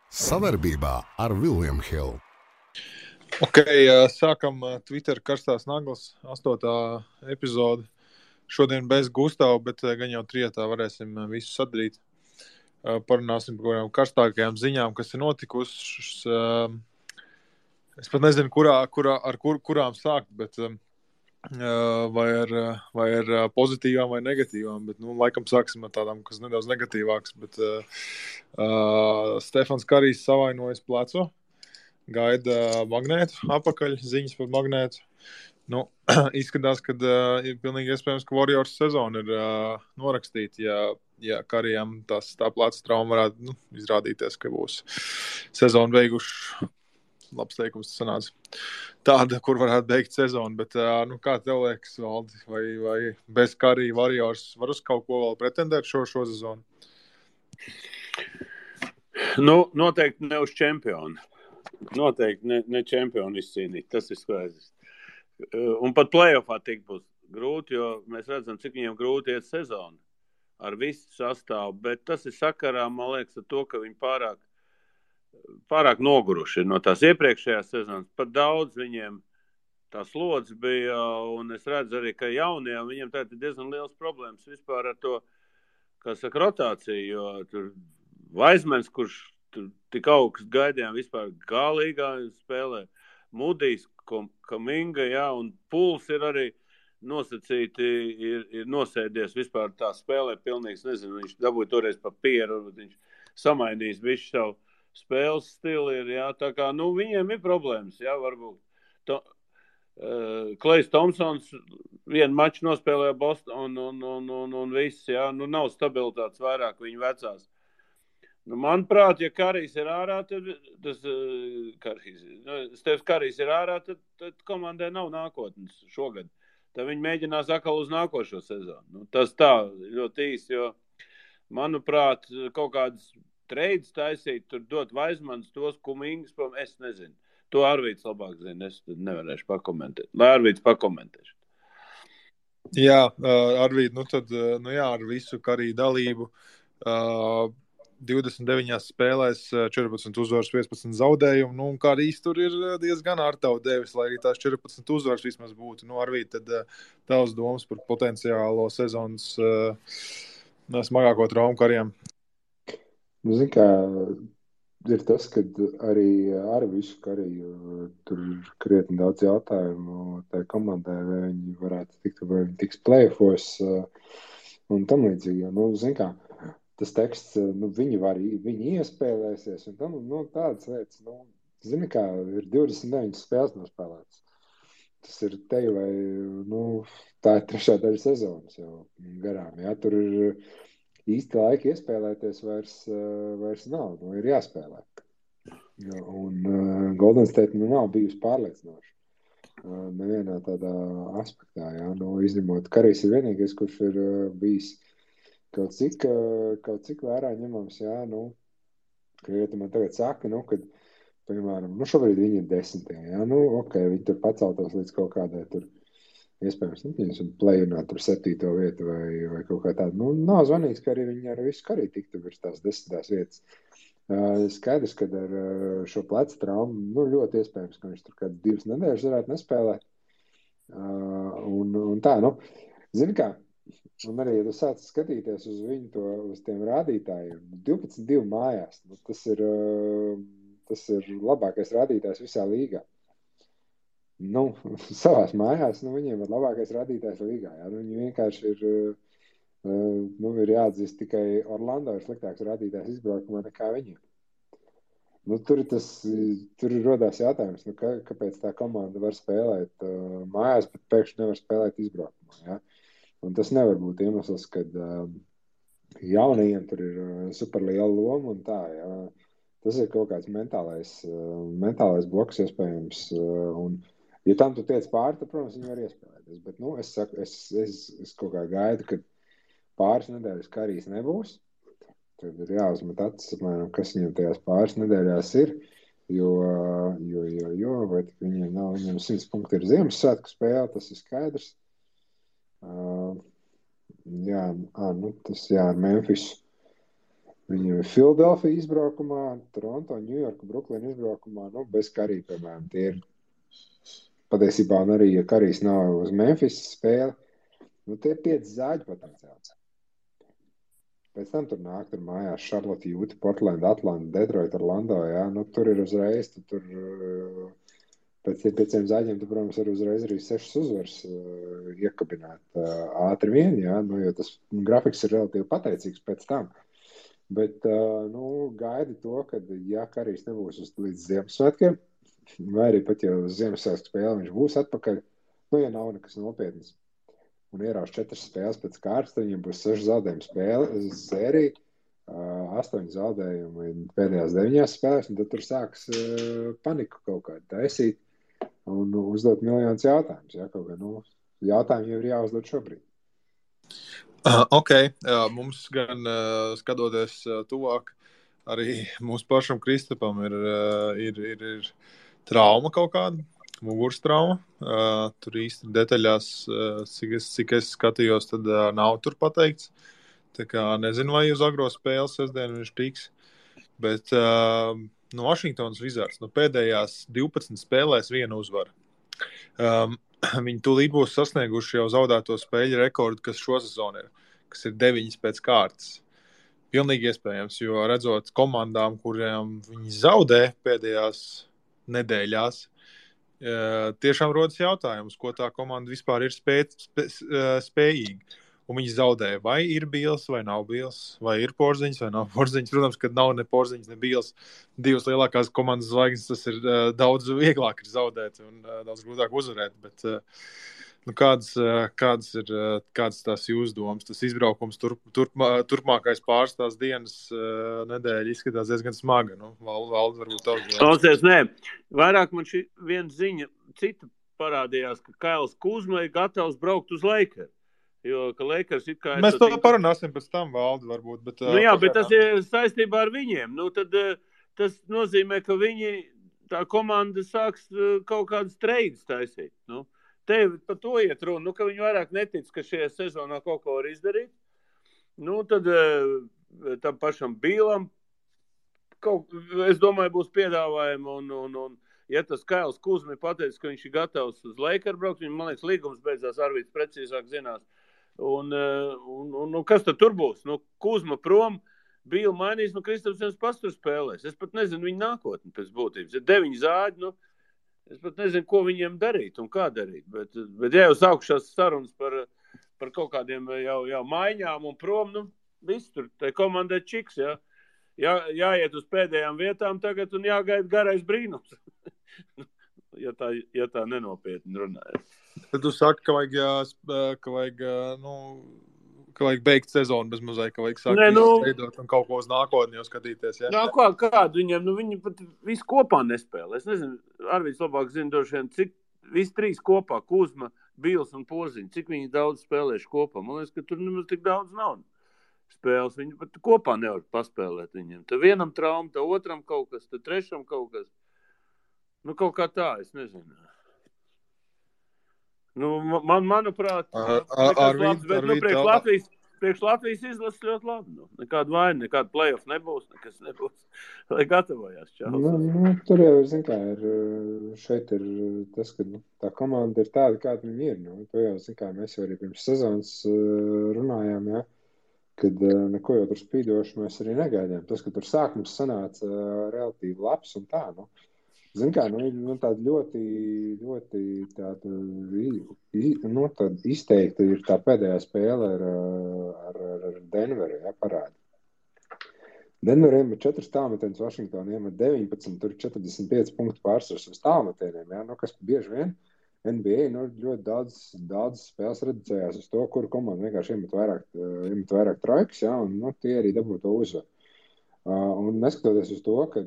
Savarbībā ar William Hill. Ok, sākam Twitter karstās naglas, 8. epizode. Šodien bez Gustava, bet gan jau trietā varēsim visu sadarīt. Parunāsim par kādām karstākajām ziņām, kas ir notikušas. Es pat nezinu, kurām sākt, bet vai ar pozitīvām vai negatīvām. Bet, laikam sāksim ar tādām, kas nedaudz negatīvākas. Bet Stefans Karijs savainojas plecu. Gaida magnētu apakaļ, ziņas par magnētu. Izskatās, ka ir pilnīgi iespējams, ka Warriors sezona ir norakstīta, ja Karijam tā pleca trauma varētu izrādīties, ka būs sezonu beiguši. Labs teikums sanāca. Tāda, kur varētu beigt sezonu, bet kā tev liekas, Valdi, vai bez Karija Warriors var uz kaut ko vēl pretendēt šo sezonu? Noteikti ne uz čempionu. Noteikti ne čempionu izcīnīt, tas ir skaidrs. Un pat playoffā tik būs grūti, jo mēs redzam, cik viņiem grūti iet sezonu ar visu sastāvu, bet tas ir sakarā, man liekas, ar to, ka viņi pārāk noguruši ir no tās iepriekšējās sezonas. Pat daudz viņiem tā slodze bija, un es redzu arī, ka jaunajiem viņiem tā ir diezgan liels problēmas vispār ar to, kā saka, rotāciju, jo tur Vaismens, kurš tik augsts gaidījām vispār galīgā spēlē, Mudijs, Kaminga, un Puls ir arī nosacīti, ir nosēdies vispār tā spēlē pilnīgs, nezinu, viņš dabūja toreiz pa pieru, viņš samainījis visu savu spēles stili, tā kā, viņiem ir problēmas, varbūt. Klejs Tomsons vienu maču nospēlēja Boston un viss, nav stabilitātes vairāk viņu vecās. Manuprāt, ja Karijs ir ārā, tad Stefs Karijs ir ārā, tad komandai nav nākotnes šogad. Tad viņi mēģinās atkal uz nākošo sezonu. Tas tā ļoti īsti, jo, manuprāt, kaut kādas treids taisīt, tur dot Vaismans, tos Kumingas, es nezinu. To Arvīts labāk zina, es nevarēšu pakomentēt. Lai Arvīts pakomentēšu. Jā, Arvīt, ar visu Kariju dalību. 29 spēlēs, 14 uzvaras, 15 zaudējumu. Karijs tur ir diezgan ārtavu devis, lai arī tās 14 uzvaras vismaz būtu. Arvīt, tad tavs domas par potenciālo sezonas smagāko traumu Karijam? Zini, kā ir tas, ka arī ar visu Kariju tur ir krietni daudz jautājumu tai komandai, vai viņi varētu tikt, vai viņi tiks playoffos un tam līdzīgi. Zini, kā tas teksts, viņi iespēlēsies, un tam, tādas lietas, zini, kā ir 29 spēles nospēlētas. Tas ir te vai, tā ir 3. daļa sezonas jau garām, tur ir īsti laika iespēlēties vairs nav, ir jāspēlē. Un Golden State nav bijusi pārliecinoša nevienā tādā aspektā, izņemot Karijs ir vienīgais, kurš ir bijis kaut cik vērā ņemams, ka man tagad saka, kad, piemēram, šobrīd viņi ir 10. Ok, viņi tur paceltos līdz kaut kādai tur, iespējams, un play-inā tur 7. vietu vai kaut kā tāda. Nav zvanīgs, ka arī viņi ar visu Kariju tiktu virs tās 10. vietas. Skaidrs, ka ar šo plecu traumu, ļoti iespējams, ka viņš tur kādas 2 nedēļas varētu nespēlēt. Un tā, zini kā, un arī, ja tu sāc skatīties uz viņu uz tiem rādītājiem, 12-2 mājās, tas ir labākais rādītājs visā līgā. Savās mājās, viņiem ir labākais rādītājs līgā. Viņi vienkārši ir jāatzīst, tikai Orlando ir sliktāks rādītājs izbraukumā nekā viņiem. Tur rodās jautājums, kāpēc tā komanda var spēlēt mājās, bet pēkšņi nevar spēlēt izbraukumā, Un tas nevar būt iemesls, kad jaunajiem tur ir superliela loma un tā, Tas ir kaut kāds mentālais bloks iespējams. Un, ja tam tu tiec pāri, tad, protams, viņi var iespēlēties. Bet, es saku, es kaut kā gaidu, ka pāris nedēļas Karijs nebūs. Tad ir jāuzmet acis, apmēram, kas viņam tajās pāris nedēļās ir. Jo vai viņiem nav, viņam 100 punkti ir Ziemassvētku spēle, tas ir skaidrs. Tas ar Memphisu. Viņam ir Philadelphia izbraukumā, Toronto, New York, Brooklyn izbraukumā, nu, bez Karī, piemēram, tie ir patiesībā, un arī, ja Karīs nav uz Memphis spēli, nu, tie ir 5 zāģi potenciāli. Pēc tam tur nāk tur mājās Charlotte, Utah, Portland, Atlanta, Detroit, Orlando, jā, nu, tur ir uzreiz, tur pēc tiem 5 zāģiem, tu, protams, var uzreiz arī 6 uzvaras iekabināt ātri vien, jā, nu, jo tas grafiks ir relatīvi pateicīgs pēc tam. Bet, nu, gaidi to, kad, ja Karīs nebūs līdz Ziemassvētkiem, vai arī pat jau uz Ziemassvētku spēli viņš būs atpakaļ, nu, ja nav nekas nopietnas, un ierauš 4 spēles pēc kārtas, tad viņam būs 6 zaudējumu spēle, sērija, 8 zaudējumi pēdējās 9 spēlēs, un tad tur sāks paniku kaut kādu taisīt un uzdot miljonus jautājumus. Ja, kaut kā, nu, jautājumi jau ir jāuzdod šobrīd. Ok, mums gan skatoties tuvāk, arī mūsu pašam Kristapam ir trauma kaut kāda. Muguras trauma. Tur īsti detaļās, cik es skatījos, tad nav tur pateikts. Tā kā nezinu, vai uz agro spēli sestdienu viņš tiks. Bet no Washingtonas Wizards pēdējās 12 spēlēs viena uzvara. Viņi tūlīt būs sasnieguši jau zaudēto spēļu rekordu, kas šo sezonu ir, kas ir 9 pēc kārtas. Pilnīgi iespējams, jo redzot komandām, kuriem viņi zaudē pēdējās nedēļās, tiešām rodas jautājums, ko tā komanda vispār ir spējīga. Un viņi zaudēja, vai ir Bīls, vai nav Bīls, vai ir Porziņš, vai nav Porziņš. Protams, kad nav ne Porziņš, ne Bīls. 2 lielākās komandas zvaigznes, tas ir daudz vieglāk ir zaudēt un daudz grūtāk uzvarēt. Bet nu, kādas tās jūsu domas? Tas izbraukums turpmākais pāris tās dienas nedēļa izskatās diezgan smaga. Nu, Valdi, varbūt tavs. Klausies, nē. Vairāk man šī viena ziņa cita parādījās, ka Kails Kuzma ir gatavs braukt uz Lakers. Jo, ka Lakers it kā... Mēs to parunāsim pēc tam, Valdi, varbūt. Bet, nu jā, bet tas ir saistībā ar viņiem. Nu, tad tas nozīmē, ka viņi, tā komanda sāks kaut kādas treidas taisīt. Nu, tev par to iet runa, nu, ka viņi vairāk netic, ka šajā sezonā kaut ko var izdarīt. Nu, tad tam pašam Bīlam, es domāju, būs piedāvājumi un ja tas Kails Kuzma pateicis, ka viņš ir gatavs uz Lakers braukt, viņam, man liekas, līgums beidzās, Arvīds precīzāk zinās. Un kas tad tur būs? Nu, Kuzma prom, Bīla mainīs, nu, Kristapsens pastur spēlēs. Es pat nezinu viņu nākotni pēc būtības. Ir 9 zāģi, nu, es pat nezinu, ko viņiem darīt un kā darīt. Bet ja jau sākušās sarunas par kaut kādiem jau maiņām un prom, nu, viss tur, tai komandai čiks, jā. Jāiet uz pēdējām vietām tagad un jāgaida garais brīnums. ja tā nenopietni runājas. Tad tu saki, ka vajag beigt sezonu bez mazai, ka vajag sākt veidot un kaut ko uz nākotni jau skatīties. Ja? Jā, kādu viņiem, nu viņi pat visi kopā nespēlē. Es nezinu, Arvīds labāk zina droši vien, cik visi 3 kopā, Kuzma, Bīls un Porziņš, cik viņi daudz spēlējuši kopā. Man liekas, ka tur nemaz tik daudz nav spēles. Viņi pat kopā nevar paspēlēt viņiem. Tad vienam trauma, tad otram kaut kas, tad trešam kaut kas. Nu, kaut kā tā, es nezinu. Nu, manuprāt, labs, bet priekš Latvijas izlases ļoti labi. Nu, nekāda vaina, nekāda play-off nebūs, nekas nebūs. Lai gatavojās čāls. Nu, tur jau, zin kā, šeit ir tas, ka tā komanda ir tāda, kāda viņi ir. Nu, to jau, zin kā, mēs jau arī pirms sezonas runājām, ja, kad neko jau tur spīdoši mēs arī negaidījām. Tas, ka tur sākums sanāca relatīvi labs un tā, nu. Zin kā, nu tāda ļoti tāda, nu, tāda izteikta ir tā pēdējā spēle ar Denveri, ja, parādi. Denveriem ir 4 tālmetienus, Washingtoniem ir 19, tur 45 punktu pārsvars uz tālmetieniem, ja, nu, kas bieži vien NBA, nu, ļoti daudz spēles reducējās uz to, kuru komanda vienkārši iemet vairāk trojkas, ja, un, nu, tie arī dabū to uzvaru. Un neskatoties uz to, ka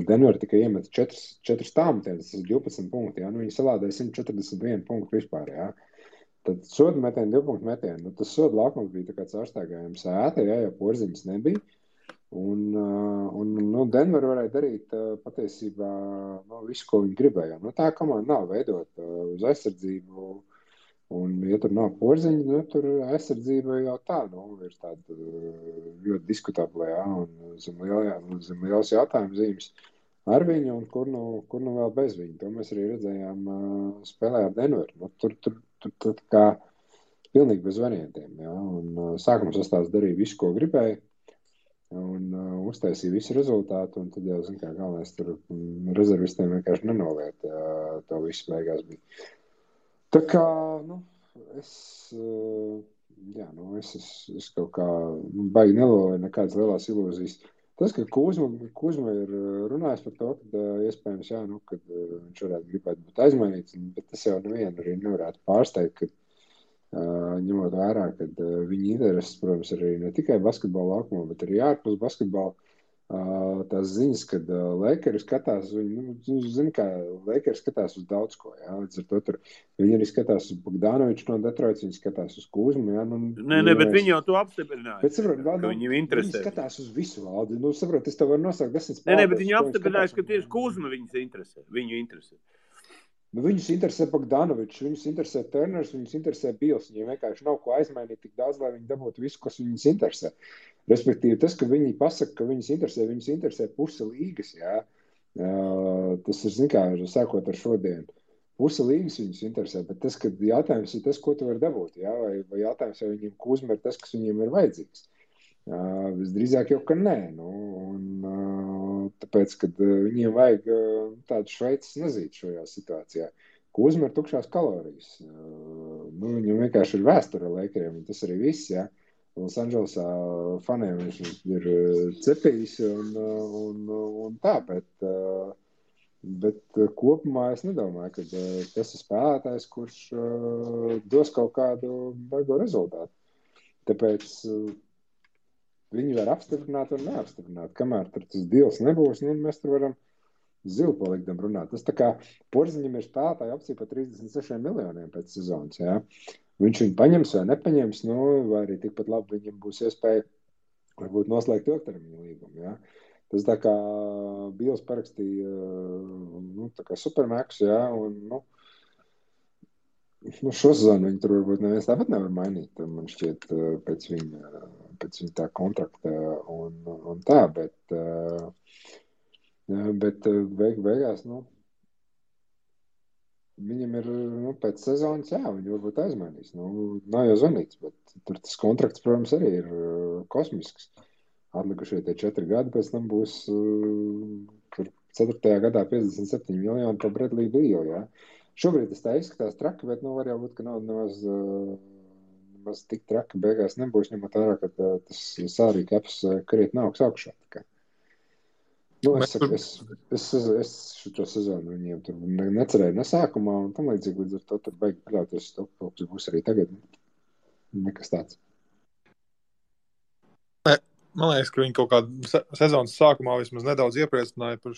Denver tikai iemet 4 tālmetienes, tas ir 12 punkti, ja? Nu, viņi salādēja 141 punktu vispār, ja? Tad soda metieni, 2 punktu metieni, nu, tas soda laukums bija tā kā caurstaigājums ēta, ja, jo Porziņas nebija, un nu, Denver varēja darīt patiesībā visu, ko viņi gribēja. Nu, tā komanda nav veidot uz aizsardzību, Un, ja tur nav Porziņa, nu, tur aizsardzība jau tā, ir tāda ļoti diskutabla, jā, un zem liels jautājums zīmes ar viņu, un kur nu vēl bez viņu. To mēs arī redzējām spēlē ar Denveru. Nu, tur kā pilnīgi bez variantiem, jā, un sākuma sastāvs darīja visu, ko gribēja, un uztaisīja visu rezultātu, un tad jau, zin kā, galvenais tur rezervistiem vienkārši nenoliet, to visu beigās bija. Tā kā, es kaut kā baigi nelolēju nekādas lielās ilūzijas. Tas, ka Kuzma ir runājis par to, ka iespējams, jā, kad viņš varētu gribēt būt aizmainīts, bet tas jau nevienu arī nevarētu pārsteigt, ka ņemot vērā, ka viņa intereses, protams, arī ne tikai basketbola laukumā, bet arī ārpus basketbola. Tās ziņas, kad Lakers skatās, zini, kā Lakers skatās uz daudz ko, jā, līdz ar to tur viņi arī skatās uz Bogdanoviču no Detroits, viņi skatās uz Kuzmu, jā, Nē, bet viņi jau to apstiprināja, bet, saprot, ka viņiem interesē. Viņi skatās uz visu valdi, saprot, es tev varu nosaukt 10 spēlētājus. Nē, bet viņi apstiprināja, ka tieši Kuzma viņu interesē. Viņus interesē Bogdanovičs, viņus interesē Turners, viņus interesē Bils. Viņiem vienkārši nav ko aizmainīt tik daudz, lai viņi dabūtu visu, kas viņus interesē. Respektīvi, tas, ka viņi pasaka, ka viņus interesē puse līgas, jā. Tas ir, zin kā, sākot ar šodienu. Puse līgas viņus interesē, bet tas, ka jautājums ir tas, ko tu vari dabūt, jā, vai jautājums, vai viņiem Kuzma ir tas, kas viņiem ir vajadzīgs. Visdrīzāk jau, ka nē. Tāpēc, kad viņiem vajag tādu Šveices nezīti šajā situācijā. Kuzma ir tukšās kalorijas. Viņam vienkārši ir vēsture ar Lakeriem, un tas arī viss, jā. Los Andželesā faniem viņš ir cepījis un tā, bet kopumā es nedomāju, ka tas ir spēlētājs, kurš dos kaut kādu baigo rezultātu. Tāpēc viņi var apstiprināt un neapstiprināt. Kamēr tur tas deals nebūs, mēs tur varam zilpalikdam runāt. Tas tā kā Porziņam ir spēlētāji opcija par 36 miljoniem pēc sezonas, jā. Viņš viņu paņems vai nepaņems, vai arī tikpat labi viņam būs iespēja varbūt noslēgt ilgtermiņa līgumu, jā. Tas tā kā Bils parakstīja, tā kā supermax, jā, un, šo sezonu viņi tur varbūt neviens tāpat nevar mainīt, man šķiet, pēc viņa tā kontrakta un tā, bet beigās, viņam ir, pēc sezonas, jā, viņi varbūt aizmainīs, nav jau zvanīts, bet tur tas kontrakts, protams, arī ir kosmisks. Atlikušie tie 4 gadi, pēc tam būs tur 4. gadā 57 miljoni par Bradley Beal, jā. Šobrīd tas tā izskatās traki, bet var jau būt, ka nav nemaz tik traki beigās nebūs, ņemot vērā, ka tas salary caps krietni augs augšā. Es šo sezonu viņiem tur necerēju ne sākumā, un tam līdzīgi līdz ar to tur baigi paļauties, to būs arī tagad. Nekas tāds. Man liekas, ka viņi kaut kādu sezonas sākumā vismaz nedaudz iepriecināja par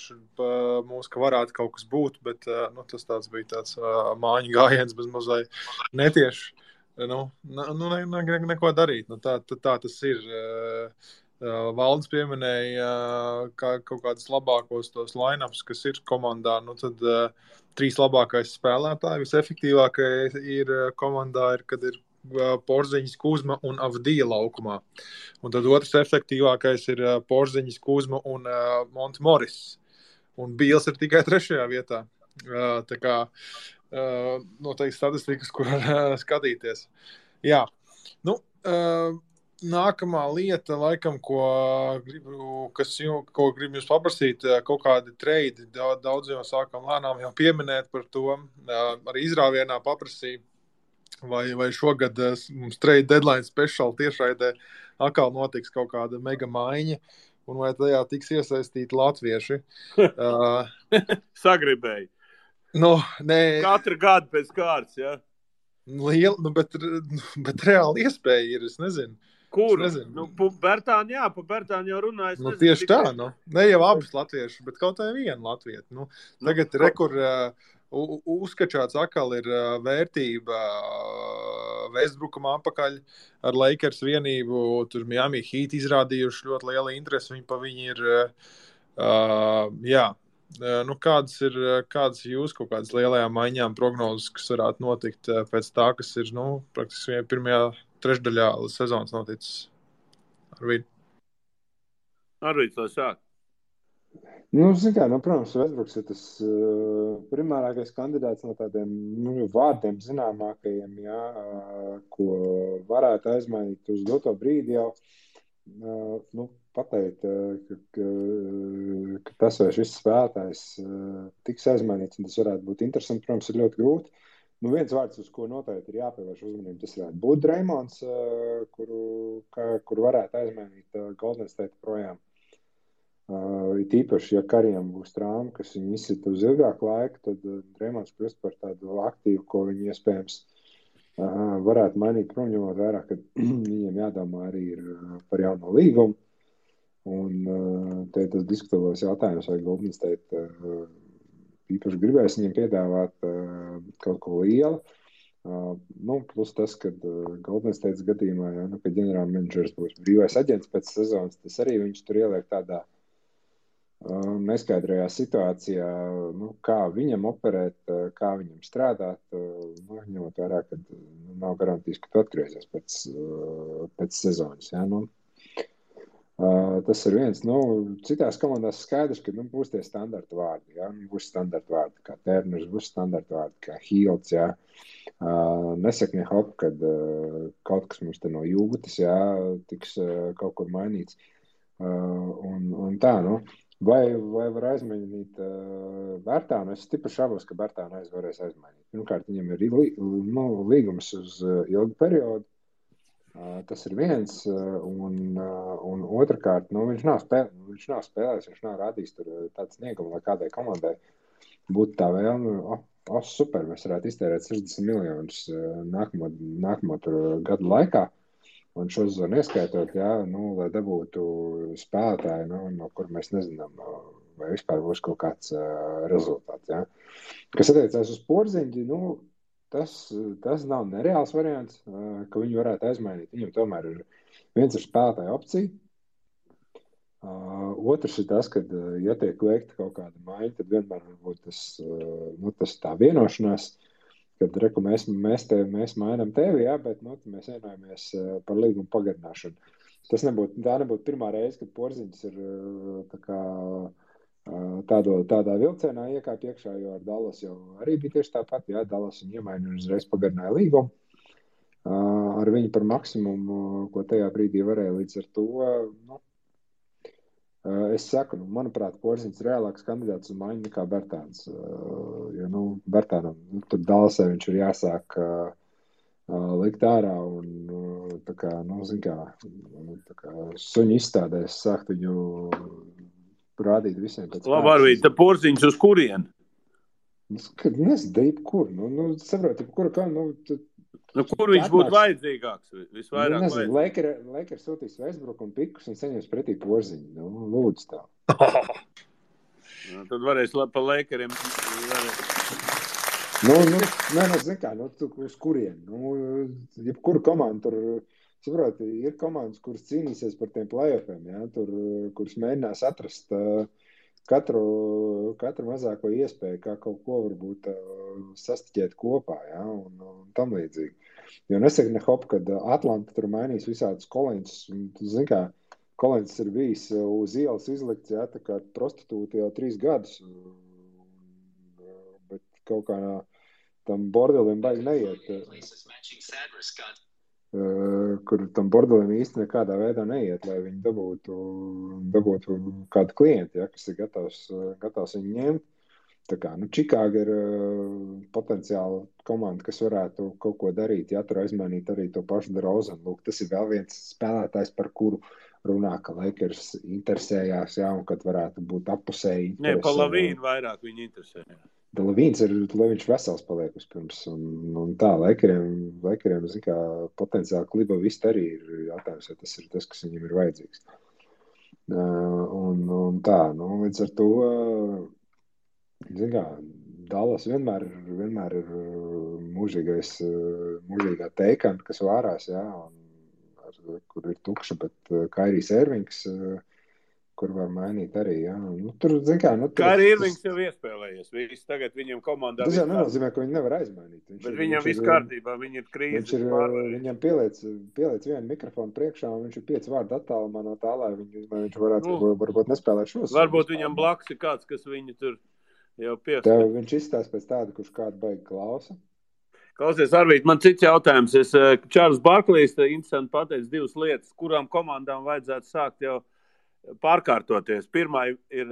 mūs, ka varētu kaut kas būt, bet tas tāds bija tāds māņu gājiens bez mazai netieši. Neko darīt. Tā tas ir. Valdis pieminēja kaut kādus labākos tos line-ups, kas ir komandā. Tad 3 labākais spēlētāji, visefektīvākais ir komandā, kad ir Porziņas, Kuzma un Avdija laukumā. Un tad otrs efektīvākais ir Porziņas, Kuzma un Monte Morris. Un Bils ir tikai 3. vietā. Tā kā noteikti statistikas, kur skatīties. Jā. Nākamā lieta, laikam, ko gribu jums paprasīt, kaut kādi treidi, daudz jau sākam lēnām jau pieminēt par to, arī izrāvienā paprasīja, vai šogad mums trade deadline special tiešraidē atkal notiks kaut kāda mega maiņa, un vai tajā tiks iesaistīti latvieši. Sagribēji. Nē. Katru gadu pēc kārtas, jā? Liela, bet reāli iespēja ir, es nezinu. Kur? Bertāni, jā, pa Bertāni jau runājas. Tieši tā, ne jau abas latvieši, bet kaut vai viena latvieta. Tagad rekur uzskačāts atkal ir vērtība Westbrookam apakaļ ar Lakers vienību. Tur Miami Heat izrādījuši ļoti lielu interesi. Viņi ir, jā, Nu, kādas jūs kaut kādas lielajām maiņām prognozes, kas varētu notikt pēc tā, kas ir, praktiski pirmajā trešdaļā sezonas noticis? Arvīds, lai sāk. Protams, Westbrooks ir tas primārākais kandidāts no tādiem vārdiem zināmākajiem, ko varētu aizmainīt uz doto brīdi jau. Pateikt, ka tas vai šis spēlētājs tiks aizmainīts, un tas varētu būt interesanti, protams, ir ļoti grūti. Viens vārds, uz ko noteikti ir jāpievērš uzmanību, tas varētu būt Draimonds, kuru varētu aizmainīt Golden State projām. It īpaši, ja Karijam būs trauma, kas viņu izsita uz ilgāku laiku, tad Draimonds kļūst par tādu aktīvu, ko viņi iespējams varētu mainīt prom, ņemot vērā, ka viņiem jādomā arī ir par jauno līgumu. Un te tas diskutēlos jautājums, vai Golden State īpaši gribēs viņiem piedāvāt kaut ko lielu. Plus tas, ka Golden State gadījumā, kad ģenerāla menedžers būs brīvais aģents pēc sezonas, tas arī viņš tur ieliek tādā neskaidrajā situācijā, kā viņam operēt, kā viņam strādāt, ņemot vērā, ka nav garantijas, ka tu atgriezies pēc sezonas. Tas ir viens. Citās komandās skaidrs, ka būs tie standarta vārdi. Būs standarta vārdi, kā Turners, būs standarta vārdi, kā Hields. Nesaka ne hop, kad kaut kas mums te no jūtas, tiks kaut kur mainīts. Un tā, Vai var aizmainīt Bērtānu? Es stipri šaubos, ka Bērtānu varēs aizmainīt. Pirmkārt, viņam ir līgums uz ilgu periodu. Tas ir viens. Un otrkārt, viņš nav spēlējis, viņš nav rādījis tur tāds sniegumu, lai kādai komandai būtu tā vēlme. Super, mēs varētu iztērēt 60 miljonus nākamo gadu laikā. Un šo zonu ieskaitot, lai dabūtu spēlētāju, no kur mēs nezinām, vai vispār būs kaut kāds rezultāts. Kas attiecās uz Porziņģi, tas nav nereāls variants, ka viņu varētu aizmainīt. Viņam tomēr ir viens ir spēlētāja opcija. Otrs ir tas, ka, ja tiek veikta kaut kāda maiņa, tad vienmēr varbūt tas tā vienošanās, kad mēs mainām tevi, bet mēs vienojamies par līgumu pagarināšanu. Tā nebūtu pirmā reize, kad Porziņš ir tādā vilcienā iekāp iekšā, jo ar Dallas jau arī bija tieši tāpat. Dallas viņu iemaina un uzreiz pagarināja līgumu. Ar viņu par maksimumu, ko tajā brīdī varēja līdz ar to. Es saku, manuprāt, Porziņš ir reālāks kandidāts uz maiņu nekā Bērtāns. Jo, Bērtānam, tur Dallasē viņš ir jāsāk likt ārā un tā kā, suņu izstādēs sākt viņu rādīt visiem pēc Labi, Arvīd, tad Porziņš uz kurien? Nezinu, kur. Saproti, kur kā, kur viņš būtu vajadzīgāks? Visvairāk vajadzīgāks. Lakers sūtīs Westbrook un pikus un saņems pretī Porziņu. Lūdzu tā. Tad varēs pa Lakeriem. Zin kā, uz kurien? Jebkuru komandu tur, saproti, ir komandas, kuras cīnīsies par tiem playoffiem, kuras mēģinās atrast katru mazāko iespēju, kā kaut ko varbūt sastiķēt kopā, un tam līdzīgi. Jo nesaka ne hop, kad Atlanta tur mainīs visādus Kolīns, zin kā, Kolīns ir bijis uz ielas izlikts, tā kā prostitūti jau 3 gadus, bet kaut kā tam bordelim baigi neiet. Kur tam bordelim īsti nekādā veidā neiet, lai viņi dabūtu kādu klientu, kas ir gatavs viņu ņemt. Tā kā, Čikāga ir potenciāli komanda, kas varētu kaut ko darīt, tur aizmainīt arī to pašu DeRozanu. Lūk, tas ir vēl viens spēlētājs, par kuru runā, ka Lakers interesējās, un kad varētu būt appusēji. Nē, pa Lavīnu vairāk viņi interesējās. Lavīns ir, lai viņš vesels paliek vispirms. Un tā, Lakeriem, zin kā, potenciāli kliba viss arī ir jautājums, vai tas ir tas, kas viņam ir vajadzīgs. Un tā, līdz ar to, zin kā, Dallas vienmēr ir mūžīgā teikanta, kas vārās, kur ir tukša, bet Kairijs Irvings kur var mainīt arī, jā. Nu, tur, zin kā, nu, tur, Kā arī Irvings jau iespēlējies. Viss tagad viņam komandā tas jau viss nenozīmē, ka viņi nevar aizmainīt. Bet viņam viss kārtībā, viņi ir krīzes pārvarējuši. Viņam pieliec vienu mikrofonu priekšā, un viņš ir 5 vārdu attālumā no tā, lai viņš varētu varbūt nespēlēt šos. Varbūt viņam blakus ir kāds, kas viņu tur jau piesaka. Tev viņš izstāsta pēc tāda, kurš kādu baigi klausa. Klausies, Arvīt, man cits jautājums. Čārls Barklijs interesanti pateica 2 lietas, kurām komandām vajadzētu sākt jau pārkārtoties. Pirmā ir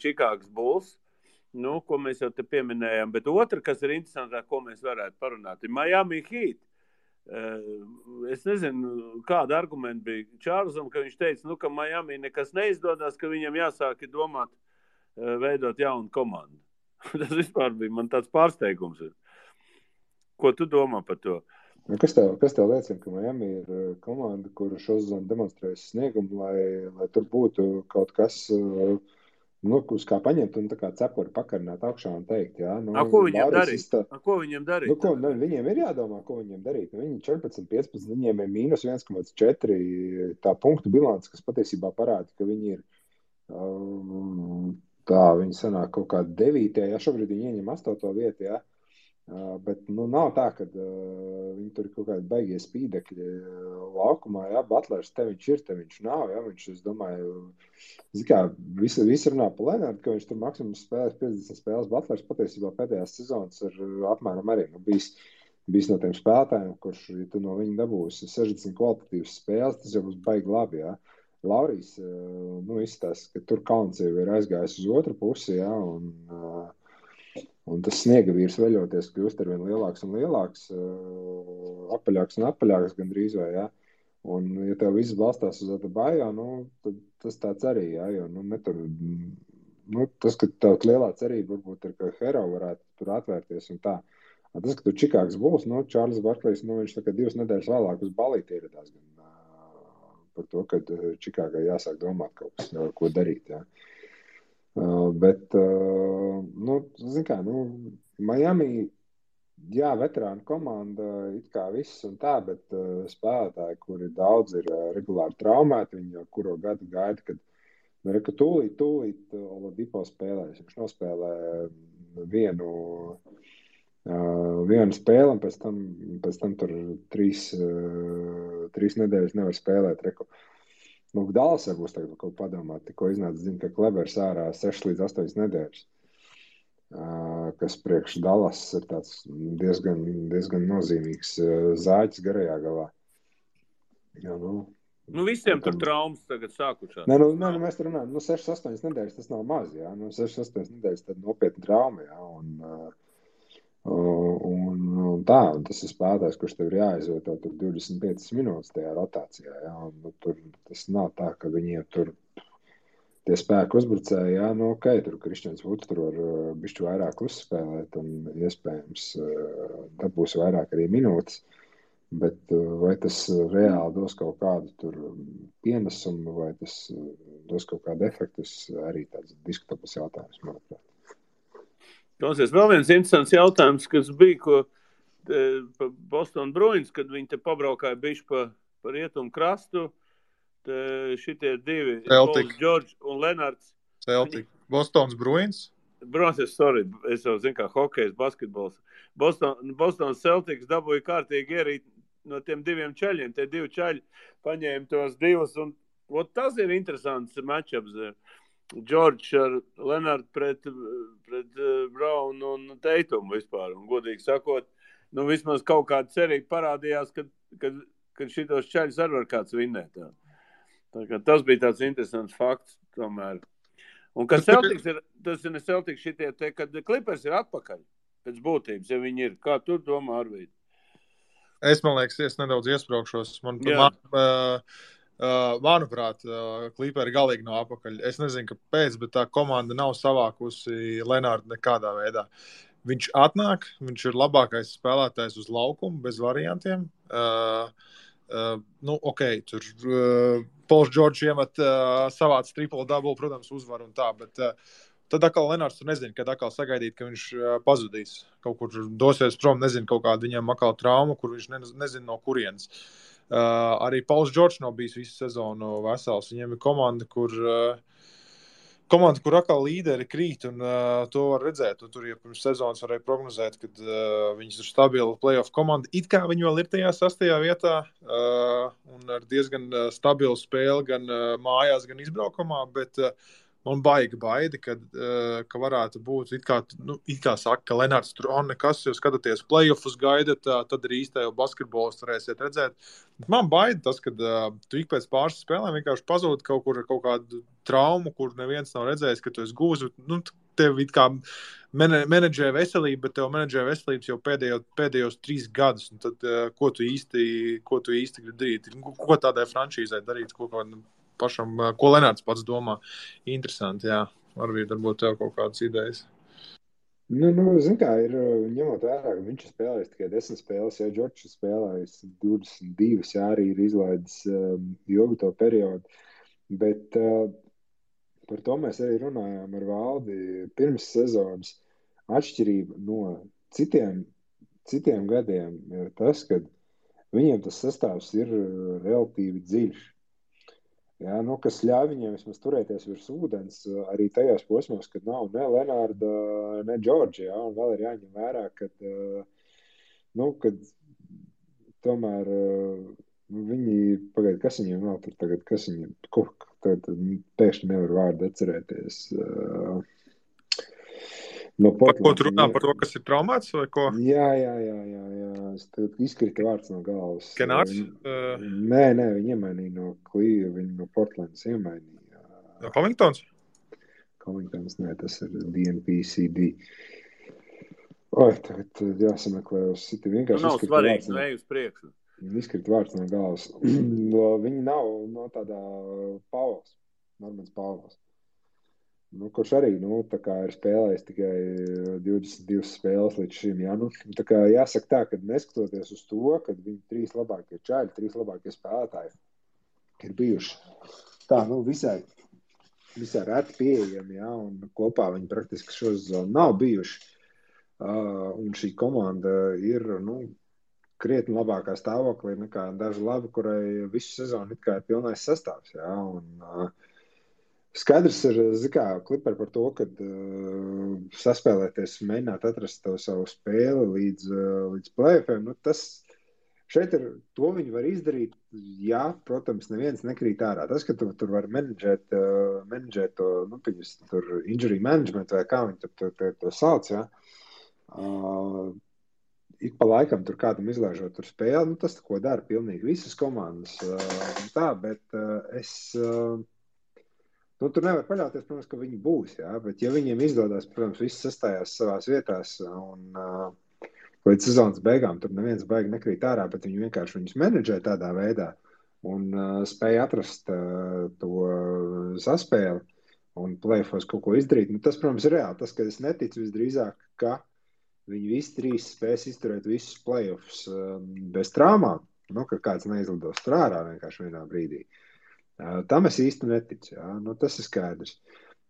Čikāgas Bulls, ko mēs jau te pieminējām, bet otra, kas ir interesantāk, ko mēs varētu parunāt, ir Miami Heat. Es nezinu, kāda argumenta bija Čārlzam, ka viņš teica, ka Miami nekas neizdodas, ka viņam jāsāk domāt veidot jaunu komandu. Tas vispār bija man tāds pārsteigums. Ko tu domā par to? Kas tev liecina, ka Miami ir komanda, kura šo sezonu demonstrējusi sniegumu, lai tur būtu kaut kas, uz kā paņemt un tā kā cepuri pakarināt augšā un teikt, jā. Ko viņiem darīt? Viņiem ir jādomā, ko viņiem darīt. Viņi 14-15, viņiem ir mīnus 1,4 tā punktu bilants, kas patiesībā parāda, ka viņi ir viņi sanāk kaut kā 9. Jā, šobrīd viņi ieņem 8. vietu, jā. Bet nav tā, ka viņi tur ir kaut kādi baigie spīdekļi laukumā, jā, Butlers te viņš nav, jā, viņš, es domāju, visi runā pa Lenardu, ka viņš tur maksimums spēlēs 50 spēles, Butlers patiesībā pēdējās sezonas ir apmēram arī, bijis no tiem spēlētājiem, kurš, ja tu no viņa dabūsi 60 kvalitatīvas spēles, tas jau būs baigi labi, jā. Laurijs, izstāsta, ka tur kauns jau ir aizgājis uz otru pusi, jā, un tas sniega vīrs veļoties kļūst arvien lielāks un lielāks, apaļāks un apaļāks gandrīz vai, jā. Un, ja tev viss balstās uz Adebayo, tad tas tāds arī, jā, jo, tas, ka tev lielā cerība varbūt ir, ka Hero varētu tur atvērties un tā. Tas, ka tur Čikāgas Bulls, Čārlis Barklijs, viņš tā kā 2 nedēļas vēlāk uz balīti ieradās gan par to, ka Čikāgai jāsāk domāt kaut kas, ko darīt, jā. Bet, zin kā, Miami, jā, veterānu komanda, it kā viss un tā, bet spēlētāji, kuri daudz ir regulāri traumēti, viņi jau kuro gadu gaida, kad tūlīt Oladipo spēlēs. Viņš nospēlē vienu spēli, un pēc tam tur 3 nedēļas nevar spēlēt. Dallasā būs tagad kaut padomāt, tikko iznāca ziņa, ka Klebers ārā 6 līdz 8 nedēļas, kas priekš Dallas ir tāds diezgan nozīmīgs zāķis garajā galā. Jā, visiem tur traumas tagad sākušās. Mēs tur runājam, 6-8 nedēļas tas nav maz, jā. 6-8 nedēļas tad nopietni trauma, jā. Un tas ir spēlētājs, kurš tev ir jāizvieto tur 25 minūtes tajā rotācijā, jā, un tur tas nav tā, ka viņiem tur tie spēku uzbrucēji, jā, tur Kristians Vuds tur var bišķi vairāk uzspēlēt un iespējams dabūs vairāk arī minūtes, bet vai tas reāli dos kaut kādu tur pienesumu, vai tas dos kaut kādu efektu, arī tāds diskutabls jautājums, manuprāt. Klausies, vēl viens interesants jautājums, kas bija, ko Boston Bruins, kad viņi te pabraukāja bišķi pa rietumu krastu, šitie 2, Pauls George un Lenards. Celtic. Bostons Bruins? Bruins, es jau zinu, kā hokejs, basketbols. Boston Celtics dabūja kārtīgi ierīt no tiem 2 čaļiem. Tie 2 čaļi paņēma tos 2, un tas ir interesants matchups. George ar Lenardu pret Brown un Teitumu vispār. Un, godīgi sakot, vismaz kaut kāda cerība parādījās, kad šitos čaļus arī var kāds vinnēt. Tas bija tāds interesants fakts tomēr. Un kad Celtics ir, tas ir ne Celtics šitie te, kad Clippers ir atpakaļ pēc būtības, ja viņi ir. Kā tu domā, Arvīd? Man liekas, es nedaudz iespraukšos. Manuprāt, Clipperi galīgi nav apakaļ. Es nezinu, kāpēc, bet tā komanda nav savākusi Lenārdu nekādā veidā. Viņš atnāk, viņš ir labākais spēlētājs uz laukumu, bez variantiem. Tur Pauls George iemet savāds triple-double, protams, uzvar un tā, bet tad atkal Lenārds tur nezinu, kad atkal sagaidīt, ka viņš pazudīs. Kaut kur dosies prom, nezinu, kaut kāda viņam atkal trauma, kur viņš nezinu no kurienes. Arī Pauls Džordžs nav bijis visu sezonu vesels. Viņiem ir komanda, kur atkal līderi krīt, un to var redzēt. Un tur jau pirms sezonas varēja prognozēt, kad viņas ir stabila playoff komanda. It kā viņi vēl ir tajā 6. vietā, un ar diezgan stabilu spēli gan mājās, gan izbraukumā, bet man baida, ka varētu būt, it kā saka, ka Lenārds tur nekas, jo skatoties playoffus gaidat, tad arī īstajā basketbolas varēsiet redzēt. Bet man baida tas, ka tu ik pēc pāris spēlēm vienkārši pazūd kaut kādu traumu, kur neviens nav redzējis, ka tu esi gūzi. Tev it kā menedžē veselību, bet tev menedžē veselības jau pēdējos 3 gadus. Un tad, ko tu īsti gribi darīt? Ko tādai franšīzai darīt? Pašam, ko Lenārds pats domā. Interesanti, jā. Varbūt tev kaut kādas idejas. Zin kā, ir ņemot vērā, ka viņš ir spēlējis tikai 10 spēles, ja Džordžs ir spēlējis 22, jā, arī ir izlaidis ilgu to periodu. Bet par to mēs arī runājām ar Valdi pirms sezonas. Atšķirība no citiem gadiem ir tas, ka viņiem tas sastāvs ir relatīvi dziļš. Jā, kas ļauj viņiem vismaz turēties virs ūdens arī tajos posmos, kad nav ne Lenārda, ne Džordža, jā, un vēl ir jāņem vērā, kad tomēr viņi, kas viņiem vēl tur tagad, pēkšņi nevar vārdu atcerēties. No Portlands. Par ko tu runā? Par to, kas ir traumēts vai ko? Jā. Es izkrita vārds no galvas. Kenārds? Nē, viņi iemainīja no Cleveland, viņi no Portlands iemainīja. Covingtons? Covingtons, nē, tas ir DNPCD. Tagad jāsameklē uz citi vienkārši. Nav svarīgi, ne uz priekšu. Izkrita vārds no galvas. Viņi nav no tādā Pauls, Normans Pauls. Kurš arī, tā kā ir spēlējis tikai 22 spēles līdz šim, jā. Tā kā jāsaka tā, ka neskatoties uz to, kad viņi 3 labākie čaļi, 3 labākie spēlētāji ir bijuši tā, visai reti pieejami, jā, un kopā viņi praktiski šo sezonu nav bijuši. Un šī komanda ir, krietni labākā stāvoklī nekā daži labi, kurai visu sezonu it kā ir pilnais sastāvs, jā, un skaidrs ir, Kliperi par to, kad saspēlēties, mēģināt atrast to savu spēli līdz play-offiem, tas šeit ir, to viņi var izdarīt, jā, protams, neviens nekrīt ārā. Tas, ka tu tur var menedžēt to, tur injury management vai kā viņi to sauc, jā. Ik pa laikam tur kādam izlaižot tur spēli, tas ko dara pilnīgi visas komandas, tā, bet tur nevar paļauties, protams, ka viņi būs, jā, bet ja viņiem izdodās, protams, viss sastājās savās vietās un līdz sezonas beigām tur neviens baigi nekrīt ārā, bet viņi vienkārši viņus menedžē tādā veidā un spēja atrast to saspēli un play-offos kaut ko izdarīt. Tas, protams, ir reāli. Tas, ka es neticu visdrīzāk, ka viņi visi 3 spēs izturēt visus play-offs bez traumām, ka kāds neizlidos tur ārā vienkārši vienā brīdī. Tam es īsti neticu, jā. Tas ir skaidrs.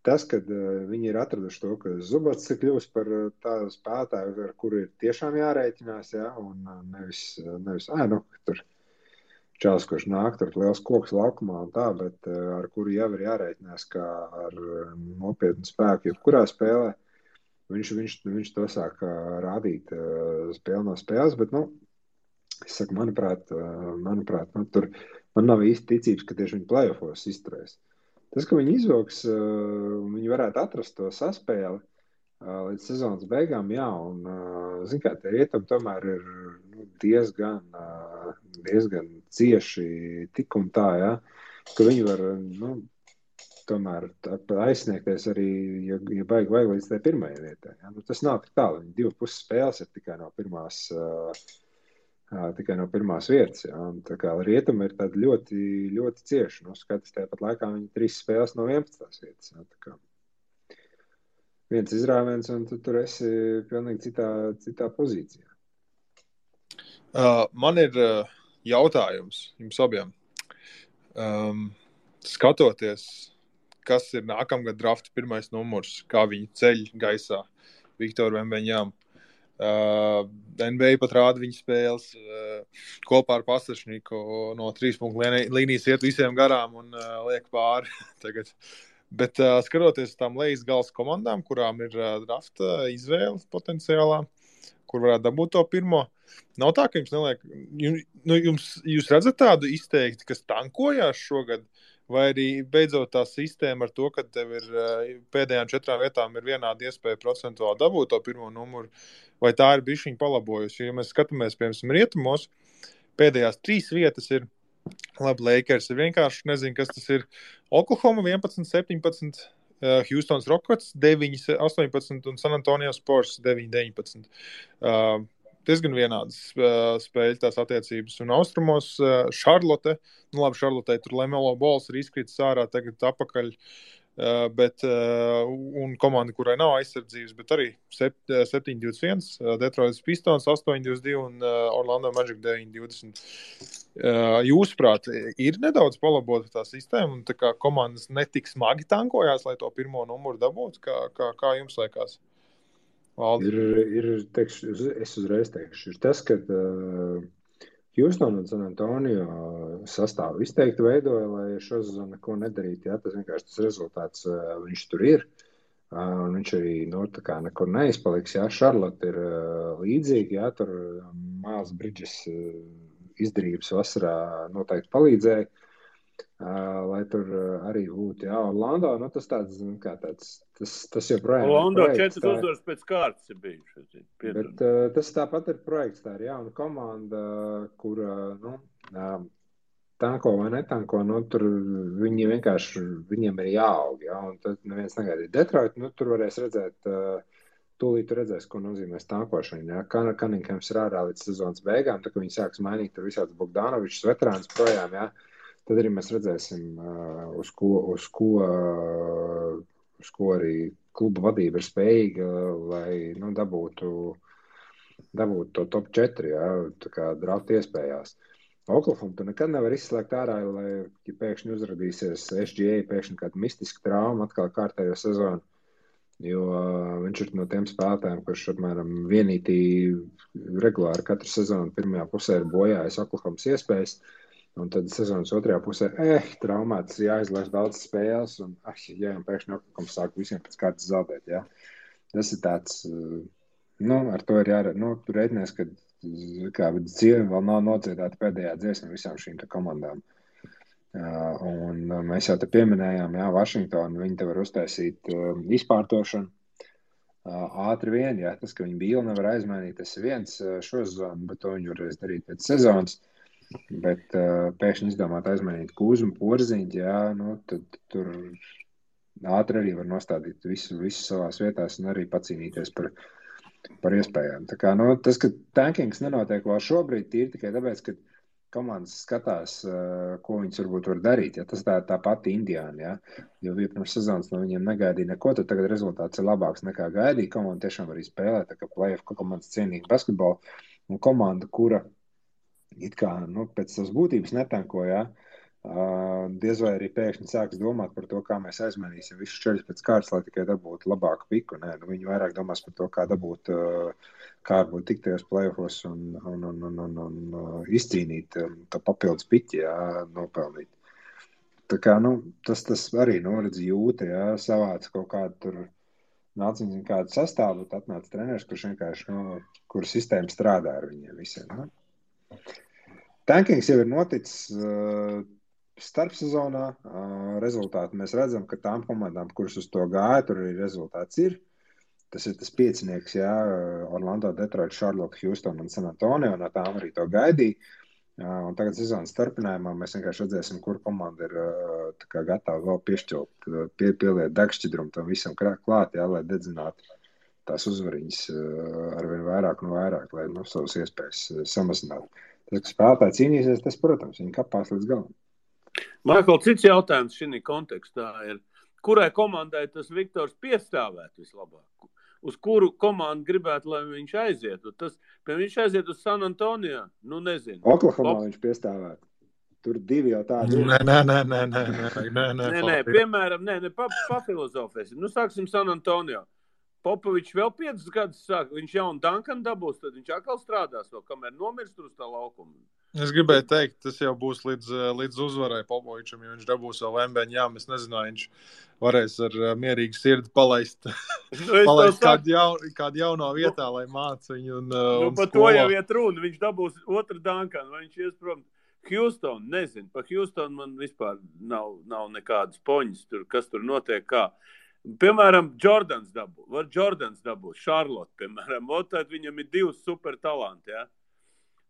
Tas, kad viņi ir atraduši to, ka Zubats ir kļūst par tādu spēlētāju, ar kuru ir tiešām jārēķinās, jā, un nevis tur čels, kurš nāk, tur liels koks laukumā un tā, bet ar kuru jau ir jārēķinās kā ar nopietnu spēku, jebkurā spēlē. Viņš to sāk rādīt spēli no spēles, bet, es saku, manuprāt, tur man nav īsti ticības, ka tieši viņi play-offos izturēs. Tas, ka viņi izvilks, viņi varētu atrast to saspēli līdz sezonas beigām, jā, un, tie rietami tomēr ir diezgan cieši tik un tā, jā, ka viņi var, tomēr aizsniegties arī, ja baigi vajag līdz tai pirmajai vietai. Ja? Tas nav tik tālu, viņi 2,5 spēles ir tikai no pirmās vietas. Ja? Un tā kā rietumi ir tādi ļoti, ļoti cieši. Skaties, tāpat laikā viņi 3 spēles no 11. vietas. Ja? Tā kā viens izrāviens, un tu tur esi pilnīgi citā pozīcijā. Man ir jautājums jums abiem. Skatoties, kas ir nākamgad drafta pirmais numurs, kā viņi ceļ gaisā Viktoru Vembeņām. NBA pat rāda viņa spēles kopā ar Pasašniku no 3 punktu līnijas iet visiem garām un liek pāri tagad. Bet skatoties uz tām lejas galas komandām, kurām ir drafta izvēle potenciālā, kur varētu dabūt to pirmo, nav tā, ka jums neliek, jūs redzat tādu izteikti, kas tankojās šogad, vai arī beidzot tā sistēma ar to, ka tev ir pēdējām 4 vietām ir vienāda iespēja procentuāli dabūt to pirmo numuru, vai tā ir bišķiņa palabojusi? Jo, ja mēs skatāmies, piemēram, rietumos, pēdējās 3 vietas ir, labi, Lakers ir vienkārši, nezinu, kas tas ir, Oklahoma 11, 17, Houstons Rockets 9, 18 un San Antonio Spurs 9, 19. Diezgan vienādas spēļu tās attiecības. Un austrumos Charlotte, Charlotte tur Lamelo Balls ir izkritis ārā, tagad apakaļ, bet, un komanda, kurai nav aizsardzības, bet arī 7-21, Detroit Pistons 8-22 un Orlando Magic 9-20. Jūsuprāt, ir nedaudz palabota tā sistēma un tā kā komandas netik smagi tankojās, lai to pirmo numuru dabūtu? Kā jums liekas? Teikšu, es uzreiz teikšu, ir tas, ka Houston un San Antonio sastāvu izteikti veidoja, lai šo sezonu neko nedarītu. Jā, tas vienkārši tas rezultāts, viņš tur ir. Un viņš arī tā kā nekur neizpaliks. Jā, Charlotte ir līdzīgi, jā, tur Miles Bridges izdarības vasarā noteikti palīdzēja, lai tur arī būtu. Jā, Orlando, tas tāds, tas joprojām Orlando ir projekts. 4 uzvaras pēc kārtas ir bijuši. Bet tas tāpat ir projekts, tā ir jauna komanda, kur, tanko vai netanko, tur viņi vienkārši, viņiem ir jāaug, jā, un tad neviens negaidīja. Detroit, tur varēs redzēt, tūlīt redzēs, ko nozīmēs tankošana, jā. Cunninghams ir ārā līdz sezonas beigām, tā, ka viņi sāks mainīt tur visāds Bogdanovičs veterāns projām, jā. Tad arī mēs redzēsim, uz ko arī kluba vadība ir spējīga, lai dabūtu to top 4, jā, tā kā drafta iespējās. Oklahoma tu nekad nevar izslēgt ārā, lai ja pēkšņi uzradīsies SGA, pēkšņi kāda mistiska trauma atkal kārtējo sezonu, jo viņš ir no tiem spēlētājiem, kurš apmēram vienītī regulāri katru sezonu pirmajā pusē ir bojājis Oklahomas iespējas. Un tad sezonas otrajā pusē, traumēts, jāizlaiž daudz spēles, un pēkšņi Oklahoma sāk visiem pēc kārtas zaudēt, jā. Tas ir tāds, ar to ir tu reiķinies, ka dzīve vēl nav nodziedāta pēdējā dziesma visām šīm komandām. Un mēs jau te pieminējām, jā, Vašingtonu, viņi te var uztaisīt izpārtošanu. Ātri vien, jā, tas, ka viņi Bīlu nevar aizmainīt, tas ir viens šo sezonu, bet to viņi varēs darīt pēc sezonas. Bet pēkšņi izdomāt aizmainīt Kūzu un Porziņu, jā, tad tur ātri arī var nostādīt visu savās vietās un arī pacīnīties par iespējām. Tā kā, tas, ka tankings nenotiek vēl šobrīd, ir tikai tāpēc, ka komandas skatās, ko viņas varbūt var darīt. Ja? Tas tā pati Indiāna, ja? Jo pirms sezonas no viņiem negaidīja neko, tad tagad rezultāts ir labāks nekā gaidīja. Komanda tiešām arī spēlē, tā kā play-off komandas cienīgi basketbolu. Un komanda, kura it kā pēc savas būtības netanko, ja? Diez vai arī pēkšņi sāks domāt par to, kā mēs aizmainīsim visus čeļus pēc kārtas, lai tikai dabūtu labāku piku. Nē, viņi vairāk domās par to, kā dabūt, kā varbūt tikt tajos play-offos un izcīnīt to papildus piķi, jā, nopelnīt. Tā kā, tas arī, redz jūta, jā, savāc kaut kādu tur nāc viņam kādu sastāvu, tad atnāc treneris, kurš vienkārši, kur sistēma strādā ar viņiem visiem. Tankings jau ir noticis starpsezonā. Rezultāti mēs redzam, ka tām komandām, kuras uz to gāja, tur arī rezultāts ir. Tas ir tas piecinieks, jā, Orlando, Detroit, Charlotte, Houston un San Antonio, no tām arī to gaidīja. Un tagad sezonas starpinājumā mēs vienkārši redzēsim, kur komanda ir tā kā gatava vēl piešķilt, pieliet degšķidrumu tam visam klāt, jā, lai dedzinātu tās uzvariņas arvien vairāk un vairāk, lai savas iespējas samazinātu. Tas, ka spēlētāji cīnīsies, tas, protams, viņi kapās līdz galam. Maikl, cits jautājums šī kontekstā ir, kurai komandai tas Viktors piestāvētu vislabāk? Uz kuru komandu gribētu, lai viņš aizietu? Viņš aiziet uz San Antonio? Nezinu. Oklahomā viņš piestāvētu. Tur divi jau tādi. Nē, piemēram, papilozofēsim. Sāksim San Antonio. Popovičs vēl 5 gadus sāk, viņš jaunu Duncan dabūs, tad viņš atkal strādās vēl, kamēr nomirst uz tā laukuma. Es gribēju teikt, tas jau būs līdz uzvarai Popovičam, jo viņš dabūs vēl Wembanyam. Es nezinu, viņš varēs ar mierīgu sirdi palaist kādu jauno vietā, lai māca viņu un par to jau iet runa. Viņš dabūs otru Duncanu, vai viņš ies prom. Houston, nezinu, par Houston man vispār nav nekādas poņas, kas tur notiek kā. Piemēram, Jordans dabūs, Charlotte, piemēram, tad viņam ir 2 super talanti, ja?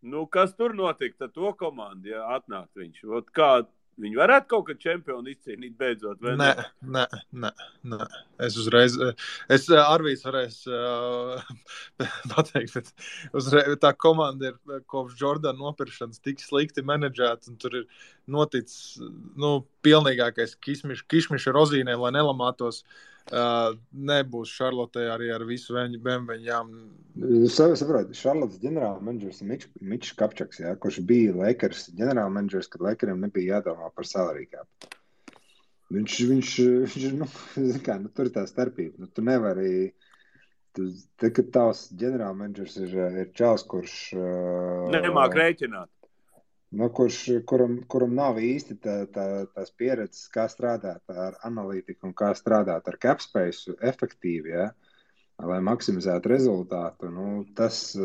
Nu, kas tur notika, tad to komandu, ja atnāk viņš? Kā viņi varētu kaut kad čempionu izcīnīt beidzot, vai ne? Nē. Es Arvīs varēs pateikt, bet tā komanda ir kopš Jordana nopirkšanas tik slikti menedžēta, un tur ir noticis, pilnīgākais kišmiša rozīnēm, lai nelamātos. Nebūs Šarlotē arī ar visu Wembanyam. Saprot, Šarlotas ģenerāla menedžers Mičs Kapčaks, ja, kurš bija Lakers ģenerāla menedžers, kad Lakeriem nebija jādomā par salary cap. Viņš tur ir tā starpība. Tu nevari, kad tavs ģenerāla menedžers ir čals, kurš nemāk rēķināt. Kuram nav īsti tās pieredzes, kā strādāt ar analītiku un kā strādāt ar capspace efektīvi, ja, lai maksimizētu rezultātu. Tas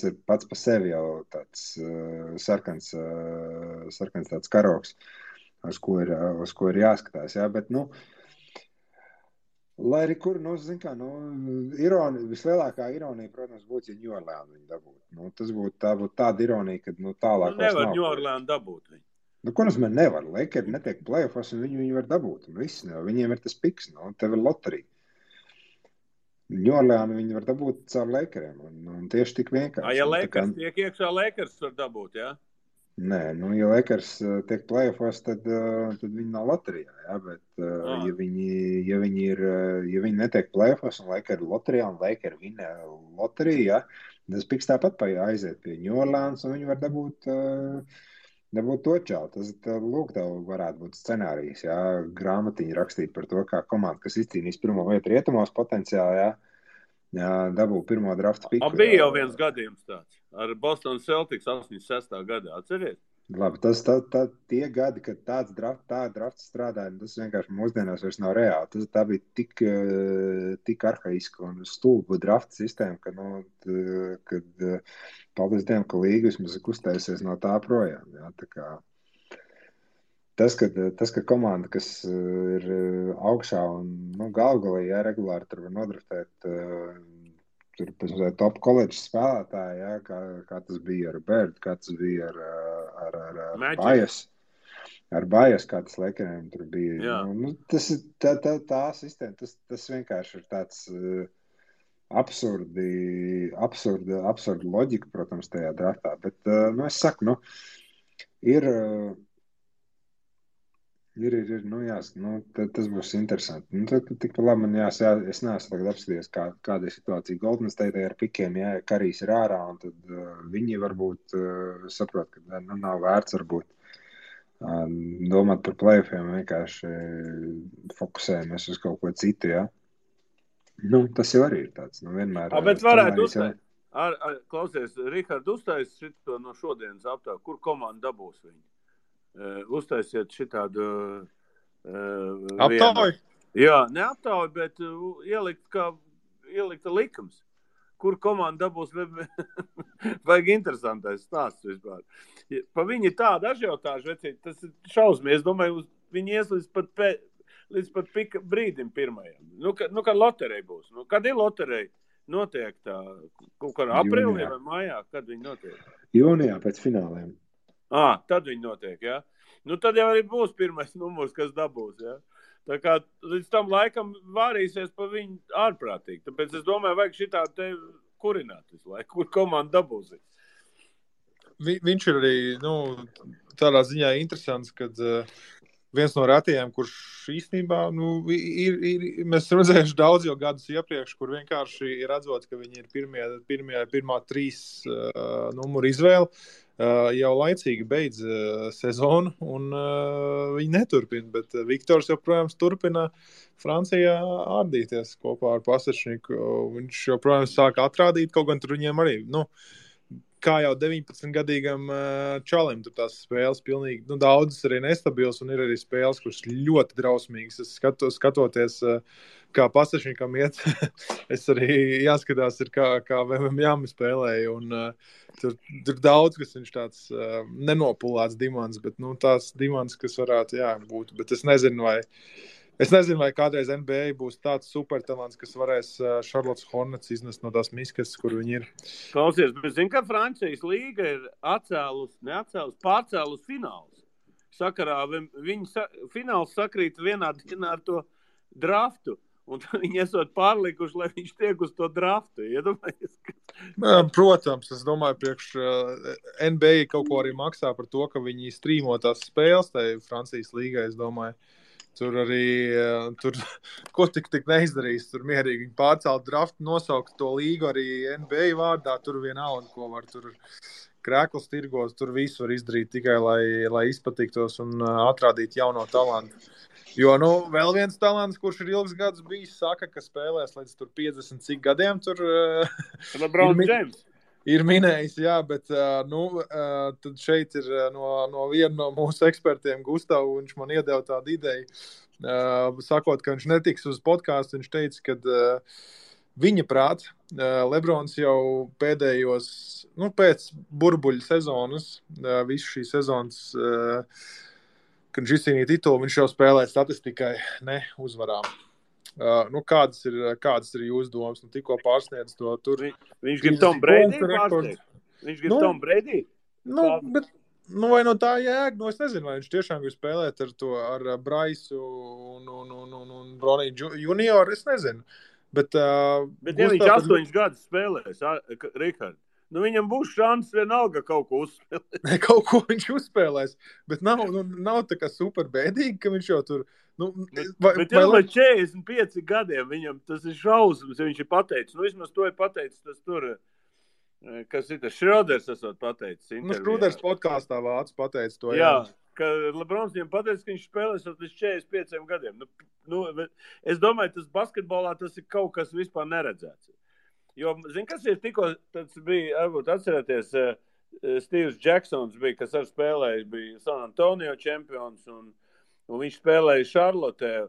ir pats par sevi jau tāds sarkans tāds karoks, uz ko ir jāskatās. Ja, bet, lai arī kur, vislielākā ironija, protams, būtu, ja New Orleans viņu dabūtu. Tā būtu tāda ironija, kad tālāk nevar New Orleans dabūt viņu. Ko nozīmē nevar? Lakeri netiek playoffs, un viņi var dabūt. Viņiem ir tas piks, tev ir loterija. New Orleans viņi var dabūt caur Lakeriem, un tieši tik vienkārši. Ja Lakers tiek iekšā, Lakers var dabūt, jā? Nē, ja Lakers tiek playoffs, tad viņi nav loterijā, jā, bet ja viņi netiek playoffs un Lakers ir loterijā un Lakers vinē loteriju, jā, tas piks tāpat aiziet pie New Orleans un viņi var dabūt to čau. Tas, lūk, tev varētu būt scenārijs, jā, grāmatiņi rakstīt par to, kā komanda, kas izcīnīs pirmo vietu rietumos potenciāli, jā, dabū pirmo drafta piku. Bija jau viens gadījums tāds. Ar Boston Celtics 86. gadā, atceries? Labi, tie gadi, kad tā drafts strādāja, tas vienkārši mūsdienās vairs nav reāli. Tā bija tik arhaiska un stulba drafta sistēma, kad paldies Dievam, ka līga vismaz kustēsies no tā projām. Jā, tā kā tas, ka komanda, kas ir augšā un galvgalī, jā, regulāri tur var nodraftēt tur top college spēlētāji, jā, kā tas bija ar Bird, kā tas bija ar Bajas. Ar Bajas, kā tas Lakeriem tur bija. Tas ir tā sistēma, tas vienkārši ir tāds absurda loģika, protams, tajā draftā. Bet, es saku, tas būs interesanti. Tik labi man es neesmu tagad apskatījies, kāda ir situācija Golden State ar pikiem, ja Karijs ir ārā, un tad viņi varbūt saprot, ka nav vērts varbūt domāt par playoffiem, vienkārši fokusējamies uz kaut ko citu, ja. Tas jau arī ir tāds, vienmēr. Bet varētu uzteikt. Klausies, Rihard, uztais šito no šodienas aptāvu, kur komanda dabūs viņu? Uztaisiet šitādu aptauju? Jā, ne aptauju, bet ielikt likums. Kur komanda dabūs, vajag interesantais stāsts vispār. Pa viņi tāda ažiotāža, vecīt, tas ir šausmīgi. Es domāju, viņi ies līdz pat pika brīdim pirmajam. Kad loterija būs? Kad ir loterija? Notiek tā, kaut kādā aprīlī vai mājā, kad viņi notiek? Jūnijā pēc fināliem. Tad viņi notiek, jā. Tad jau arī būs pirmais numurs, kas dabūs, jā. Tā kā līdz tam laikam vārīsies pa viņu ārprātīgi. Tāpēc es domāju, vajag šitā te kurināt visu laiku, kur komanda dabūs. Viņš ir arī, tādā ziņā interesants, kad viens no retajiem, kurš īstenībā, mēs redzējuši daudz jau gadus iepriekš, kur vienkārši ir redzot, ka viņi ir pirmā 3 numuru izvēle. jau laicīgi beidz sezonu, un viņi neturpina. Bet Viktors joprojām turpina Francijā ārdīties kopā ar Pasečniku. Viņš joprojām sāk atrādīt, kaut gan tur viņiem arī, kā jau 19-gadīgam čalim, tur tās spēles pilnīgi, daudzas arī nestabils, un ir arī spēles, kuras ļoti drausmīgas. Es skatoties, kā Pasečnikam iet, es arī jāskatās, ir kā Jāmi spēlēja, un tur daudz, kas viņš tāds nenopulēts dimants, bet tās dimants, kas varētu būt, bet es nezinu, vai kādreiz NBA būs tāds supertalants, kas varēs Charlottes Hornets iznest no tās miskas, kur viņi ir. Klausies, bet zini, ka Francijas līga ir pārcēlus fināls. Sakarā viņa fināls sakrīt vienā dienā ar to draftu. Un viņi esot pārlikuši, lai viņš tiek uz to draftu. Iedomājies? Protams, es domāju, priekš NBA kaut ko arī maksā par to, ka viņi strīmo tās spēles tai Francijas līgai, es domāju. Tur arī, ko tik neizdarīs, tur mierīgi viņi pārcelt draftu, nosaukt to līgu arī NBA vārdā, tur vienalga, ko var tur krēkls tirgos, tur visu var izdarīt tikai, lai izpatiktos un atrādīt jauno talantu. Jo, vēl viens talants, kurš ir ilgs gadus bijis, saka, ka spēlēs līdz tur 50 cik gadiem, tur LeBron James. Ir minējis, jā, bet tad šeit ir no viena no mūsu ekspertiem, Gustavu, viņš man iedeva tādu ideju, sakot, ka viņš netiks uz podcastu, viņš teica, ka viņa prāt, Lebrons jau pēdējos, pēc burbuļu sezonas, visu šī sezonas, kad viņš izcīnīja titulu, viņš jau spēlē statistikai, ne uzvarām. Kādas ir jūsu domas? Tikko pārsniedz to tur. Viņš grib Tom Brady pārsniegt? Viņš grib Tom Brady? Bet, vai no tā jēga? Es nezinu, vai viņš tiešām grib spēlēt ar Braisu un Broniju junioru, es nezinu. Bet ja viņš 8 gadus spēlēs, Rihard, viņam būs šans vienalga kaut ko uzspēlēt. Kaut ko viņš uzspēlēs, bet nav tā kā super bēdīgi, ka viņš jau tur... Bet jau vai 45 gadiem viņam tas ir šausmas, ja viņš ir pateicis. Vismaz to ir pateicis tas tur, kas ir tas Šroders esot pateicis. Šroders podkāstā vācu pateicis to. Jā, ka Lebrons viņam pateicis, ka viņš spēlēs līdz 45 gadiem. Es domāju, tas basketbolā tas ir kaut kas vispār neredzēts. Jo, kas ir tikko, tas bija, varbūt atcerēties, Steves Jacksons bija, kas ar spēlējis, bija San Antonio čempions, un viņš spēlēja Šarlotē.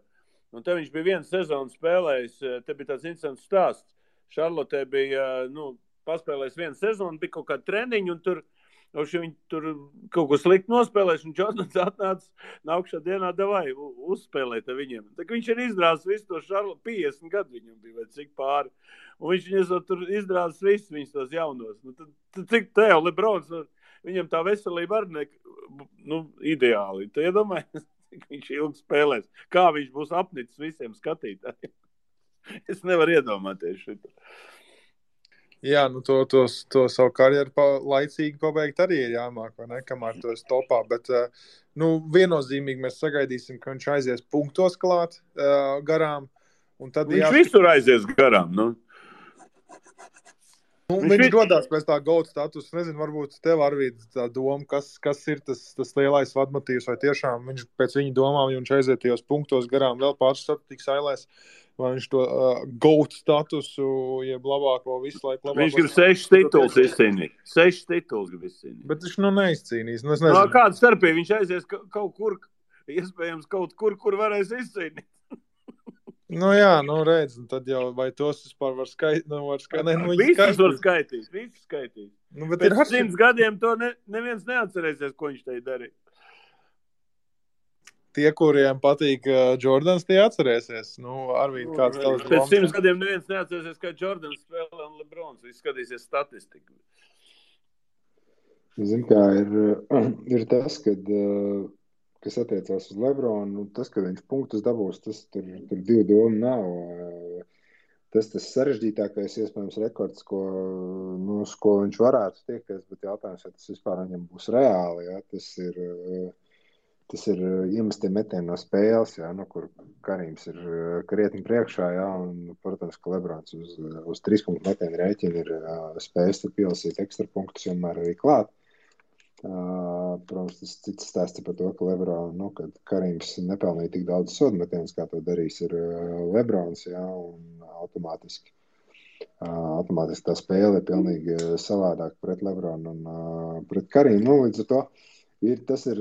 Un te viņš bija vienu sezonu spēlējis, te bija tāds interesants stāsts. Šarlotē bija, paspēlējis vienu sezonu, bija kaut kāda treniņa, un tur viņi tur kaut ko slikti nospēlēs, un Jordans atnāca nākšā dienā davai uzspēlēt viņiem. Tā viņš ir izrāzis visu to Šarlotu, 50 gadu viņam bija, vai cik pāri. Un viņš tur izrāzis visus viņus tos jaunos. Tad cik te jau Lebrons, viņam tā veselība arī ideāli. Tu iedomājies, cik viņš ilgi spēlēs. Kā viņš būs apnicis visiem skatītājiem. Es nevaru iedomāties šito. Jā, to savu karjeru laicīgi pabeigt arī ir jāmāk, vai ne, kamēr to es topā, bet, viennozīmīgi mēs sagaidīsim, ka viņš aizies punktos klāt garām, un tad viņš visur aizies garām, viņš dodās pēc tā GOAT status, nezinu, varbūt tev Arvīd tā doma, kas ir tas lielais vadmotīvs, vai tiešām viņš pēc viņa domām, ja viņš aiziet tajos punktos garām vēl pāris statistikas ailēs, vai viņš to GOAT statusu, jeb labāko visu laiku labāko... Viņš grib 6 tituls izcīnīt. 6 tituls grib izcīnīt. Bet viņš neizcīnīs. Es nezinu. Kāda starpība? Viņš aizies kaut kur, iespējams kaut kur varēs izcīnīt. Jā, redz, tad jau vai tos vispār var skaitīt? Visus var skaitīt, visus skaitīt. Pēc 100 gadiem to neviens neatcerēsies, ko viņš te darīja. Tie, kuriem patīk Jordans, tie atcerēsies. Arvīd, kāds tavs domas? Pēc 100 gadiem neviens neatcerēsies, kā Jordans spēlē un Lebrons. Viss skatīsies statistiku. Zin, kā ir tas, kas attiecās uz Lebronu, tas, ka viņš punktus dabūs, tas tur divu domu nav. Tas sarežģītākais, iespējams, rekords, ko viņš varētu tiekties, bet jautājums, ja tas vispār viņam būs reāli, ja, tas ir iemestiem metieni no spēles, jā, kur Karīms ir krietni priekšā, jā, un, protams, ka Lebrons uz 3 punktu metienu rēķinu ir spējis tad pielasīt ekstra punktus vienmēr arī klāt. Protams, tas cits stāsts par to, ka kad Karims nepelnīja tik daudz sodmetienus, kā to darīs ir Lebrons, jā, un automātiski tā spēle ir pilnīgi savādāk pret Lebronu un pret Karimu. Nu, līdz ar to tas ir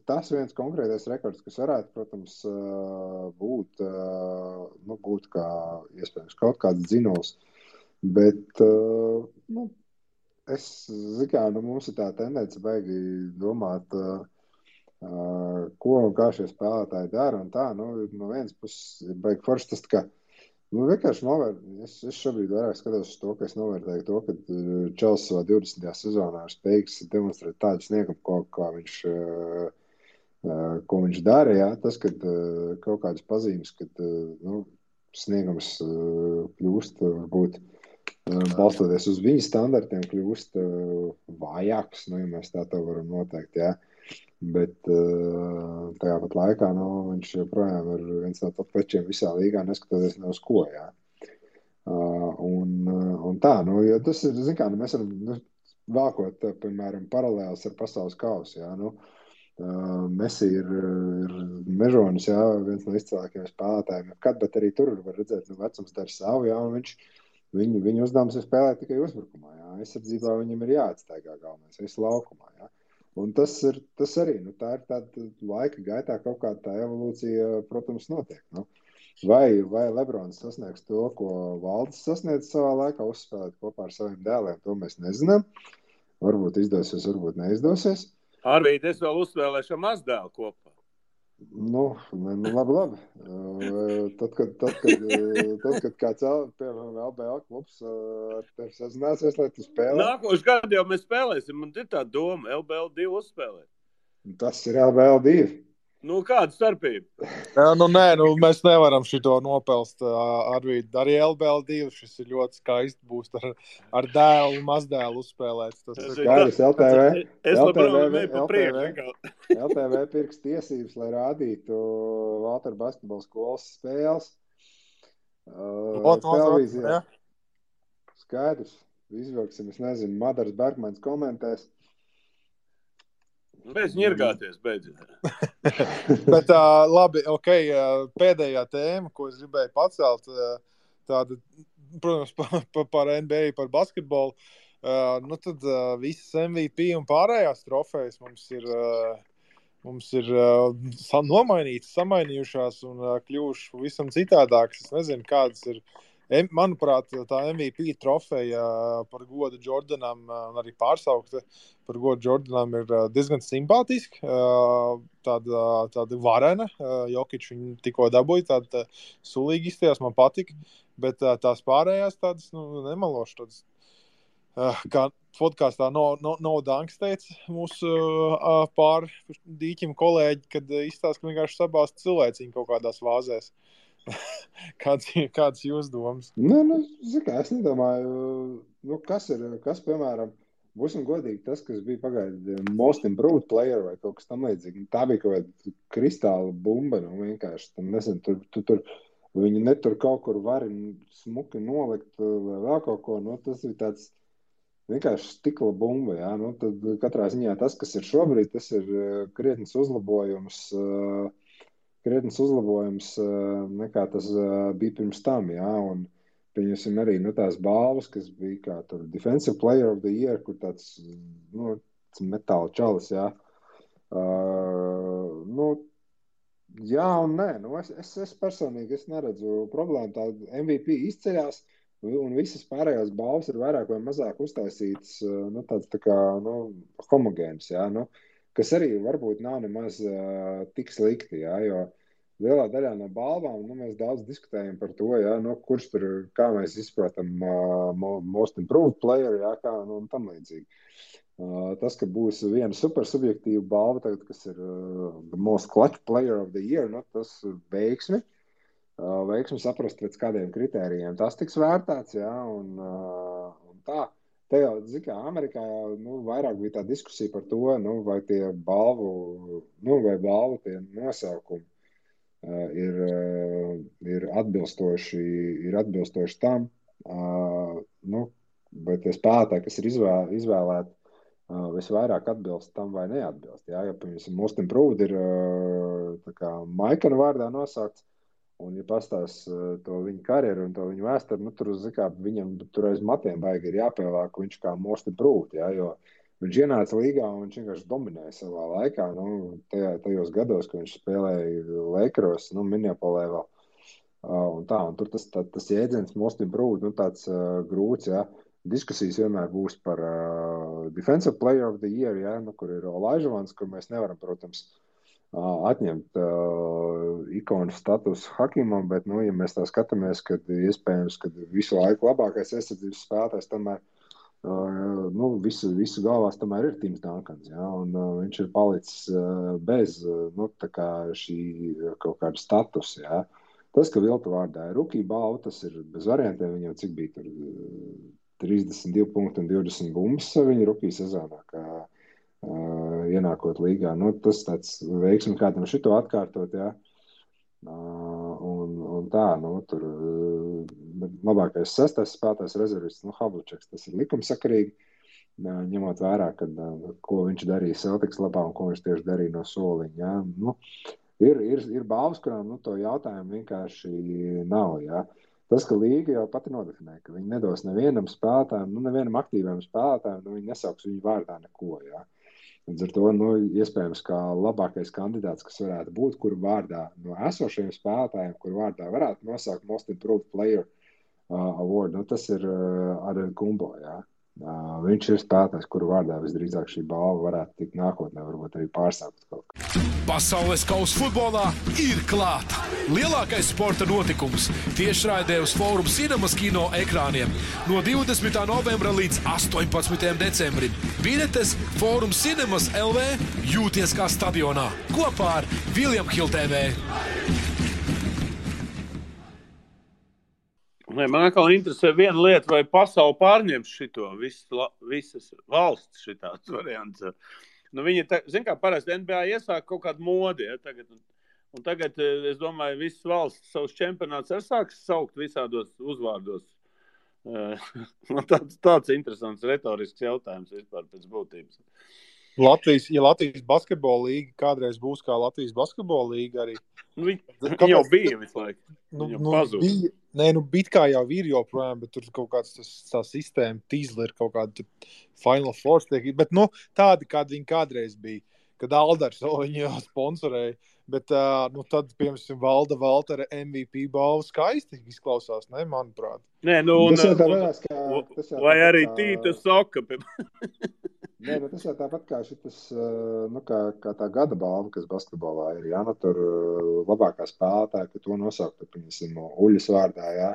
tas viens konkrētais rekords, kas varētu, protams, būt kā iespējams kaut kāds dzinols. Bet mums ir tā tendence baigi domāt, ko un kā šie spēlētāji dara un tā. No vienas puses ir baigi forši tas, ka vienkārši es šobrīd vairāk skatos uz to, ka es novērtēju to, ka Čels savā 20. sezonā ir spējīgs demonstrēt tādu sniegumu, ko viņš dara. Jā. Tas, kad kaut kādas pazīmes, kad sniegums kļūst varbūt balstoties uz viņa standartiem, kļūst vājāks, ja mēs tā varam noteikt. Jā. Bet tajā pat laikā viņš joprojām ir viens no top večiem visā līgā, neskatoties ne uz ko. Jā. Un tā, jo tas ir, mēs varam vākot, piemēram, paralēlis ar pasaules kausu. Jā. Messi ir mežonis, jā, viens no izcilākajiem spēlētājiem, bet arī tur var redzēt, vecums dara savu, jā, un viņa uzdevums ir spēlēt tikai uzbrukumā. Jā. Aizsardzībā viņam ir jāatstaigā galvenais, visu laukumā. Jā. Un tas arī, tā ir tāda laika gaitā kaut kāda tā evolūcija, protams, notiek. Vai Lebrons sasniegs to, ko Valdis sasniedz savā laikā, uzspēlēt kopā ar saviem dēliem, to mēs nezinām. Varbūt izdosies, varbūt neizdosies. Arvīd, es vēl uzspēlēšu ar mazdēlu kopā. Labi. Tad, kad kāds, piemēram, LBL klubs ar tevi sazināsies, lai tu spēlē. Nākošu gadu jau mēs spēlēsim, man ir tā doma, LBL 2 uzspēlēt. Tas ir LBL 2. Kāda starpība? Mēs nevaram šito nopelst, Arvīd. Arī LBL 2 šis ir ļoti skaisti būs ar dēlu un mazdēlu uzspēlēts. Skaidrs, LTV. Es labprāt pa priekšu. LTV pirks tiesības, lai rādītu Valteru basketbola skolas spēles. Televīzijā. Skaidrs. Izvilksim, es nezinu, Madars Bergmans komentēs. Mēs ņirgāties beidzot. Bet labi, pēdējā tēma, ko es gribēju pacelt, tāda, protams, par NBA, par basketbolu, tad visas MVP un pārējās trofejas mums ir nomainītas, samainījušās un kļuvušas pavisam citādākas. Es nezinu, kādas ir. Manuprāt, tā MVP trofeja par godu Jordanam, un arī pārsaukta par godu Jordanam, ir diezgan simpātiski. Tāda varena. Jokič viņu tikko dabūja, tāda sulīgi izstījās, man patika. Bet tās pārējās tādas, nemaloši tādas. Kā podkāstā No Dunks teica mūsu pār dīķim kolēģi, kad izstāsta, ka vienkārši sabāst cilvēciņu kaut kādās vāzēs. Kāds jūs domas? Es nedomāju, kas, piemēram, būsim godīgi, tas, kas bija pagaidi most improved player vai kaut kas tam līdzīgi. Tā bija kaut kāda kristāla bumba, vienkārši. Nezinu, tur viņi netur kaut kur vari smuki nolikt vai vēl kaut ko. Tas ir tāds vienkārši stikla bumba, jā. Tad katrā ziņā tas, kas ir šobrīd, tas ir krietnes uzlabojums nekā tas bija pirms tam, jā, un pieņemsim arī tās balvas, kas bija kā tur Defensive Player of the Year, kur tāds, metāla čalis, jā. Jā un nē, es personīgi neredzu problēmu, tā MVP izceļās, un visas pārējās balvas ir vairāk vai mazāk uztaisītas, tāds tā kā, homogēns, jā, kas arī varbūt nav nemaz tik slikti, jā, jo lielā daļā no balvām mēs daudz diskutējam par to, jā, kurš tur, kā mēs izprotam most improved player, jā, kā, un tam līdzīgi. Tas, ka būs viena super subjektīva balva, tagad, kas ir the most clutch player of the year, tas veiksmi saprast pēc kādiem kritērijiem. Tas tiks vērtēts, jā, un tā. Te jau, Amerikā vairāk bija tā diskusija par to, vai tie balvu tie nosaukumi ir atbilstoši tam, vai tie spēlētāji, kas ir izvēlēti visvairāk atbilst tam vai neatbilst. Jā, ja, piemēram, Most Improved ir tā kā Maikana vārdā nosaukts, un, ja pastās to viņa karjeru un to viņa vēsturi, nu, tur, zikā, viņam tur aiz matiem baigi ir jāpielāk viņš kā Most Improved, jā, jo viņš ienāca līgā un viņš vienkārši dominēja savā laikā, nu, tajos gados, kad viņš spēlēja Lakeros, nu, Minneapolē vēl. Un tā, un tur tas jēdziens Most Improved, nu, tāds grūts, jā. Diskusijas vienmēr būs par Defensive Player of the Year, jā, nu, kur ir Olajuwons, kur mēs nevaram, protams, atņemt ikonu status Hakimam, bet, nu, ja mēs tā skatāmies, kad iespējams, kad visu laiku labākais aizsardzības spēlētājs tomēr, nu, visu galvās tomēr ir Tims Duncans, jā, un viņš ir palicis bez, nu, tā kā šī kaut kāda status, jā. Tas, ka Vilta vārdā ir rookie balva, tas ir bez variantiem, viņam cik bija tur 32 punkti un 20 bumbas viņa rookie sezonā, kā ienākot līgā. Nu, tas tāds veiksmi kādam šito atkārtot, jā. Un tā, nu, tur labākais sestais spēlētājs rezervists, nu, Havliceks, tas ir likumsakarīgi, ņemot vērā, kad, ko viņš darīja Celtics labā un ko viņš tieši darīja no soliņa, jā. Nu, ir balvas, kurām, nu, to jautājumu vienkārši nav, jā. Tas, ka līga jau pati nodefinē, ka viņi nedos nevienam spēlētājam, nu, nevienam aktīviem spēlētājam, nu, viņi nesauks viņu vārdā neko, jā. Līdz ar to, nu, iespējams, kā labākais kandidāts, kas varētu būt, kuru vārdā no esošajiem spēlētājiem, kuru vārdā varētu nosaukt Most Improved Player Award, nu, tas ir ar Gumbo, jā. Viņš ir spēlētājs, kuru vārdā visdrīzāk šī balva varētu tikt nākotnē, varbūt arī pārsaukt kaut kā. Pasaules kausa futbolā ir klāta. Lielākais sporta notikums tiešraidē uz Forum Cinemas kino ekrāniem no 20. novembra līdz 18. decembrim. Biļetes Forum Cinemas LV jūties kā stadionā kopā ar William Hill TV. Man atkal interesē viena lieta, vai pasauli pārņems šito, visas valsts šitāds variants. Nu, viņi, zin kā, parasti NBA iesāk kaut kādu modi, ja, tagad, es domāju, visas valsts savus čempionātus arī sāks saukt visādos uzvārdos. Tāds interesants retorisks jautājums vispār pēc būtības. Latvijas basketbola līga kādreiz būs kā Latvijas basketbola līga arī. Viņa jau bija visu laiku. Bija kā jau ir joprojām, bet tur kaut kāds tā sistēma tīzla ir kaut kāda Final Four tiek. Bet, nu, tādi, kādi viņi kādreiz bija, kad Aldars viņu jau sponsorēja. Bet, nu, tad, piemēram, Valda Valtera MVP balva skaisti izklausās, ne, manuprāt. Nē, nu, vai arī Tīta Soka. Nē, bet tas jau tāpat kā šitas, nu, kā tā gada balva, kas basketbolā ir, jā, nu, tur labākā spēlētāja, ka to nosaukt, piemēram, Uļas vārdā, jā,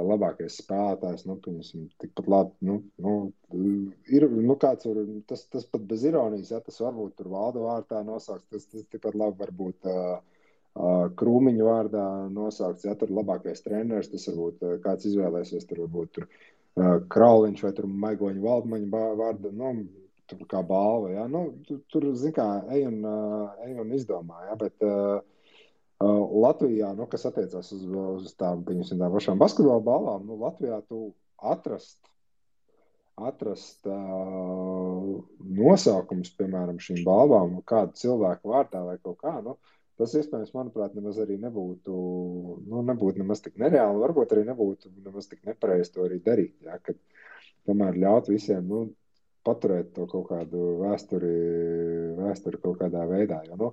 labākais spēlētājs, nu, piemēram, tikpat labi, ir, nu, kāds var, tas pat bez ironijas, jā, tas varbūt tur Valda vārdā nosaukt, tas tikpat labi varbūt Krūmiņa vārdā nosaukts, jā, tur labākais treneris, tas varbūt kāds izvēlēsies, tur varbūt tur Krauliņš vai tur Maigoņa Valdmaņa vārda, nu, tur kā balva, jā, nu, tur, zin kā, ej un izdomā, jā, bet Latvijā, nu, kas attiecās uz tām, piemēram, tām pašām basketbola balvām, nu, Latvijā tu atrast nosaukums, piemēram, šīm balvām, kādu cilvēku vārdā vai kaut kā, nu, tas, iespējams, manuprāt, nemaz arī nebūtu nemaz tik nereāli, varbūt arī nebūtu nemaz tik nepareizi to arī darīt, jā, kad tomēr ļaut visiem, nu, paturēt to kaut kādu vēsturi kaut kādā veidā, jo, nu,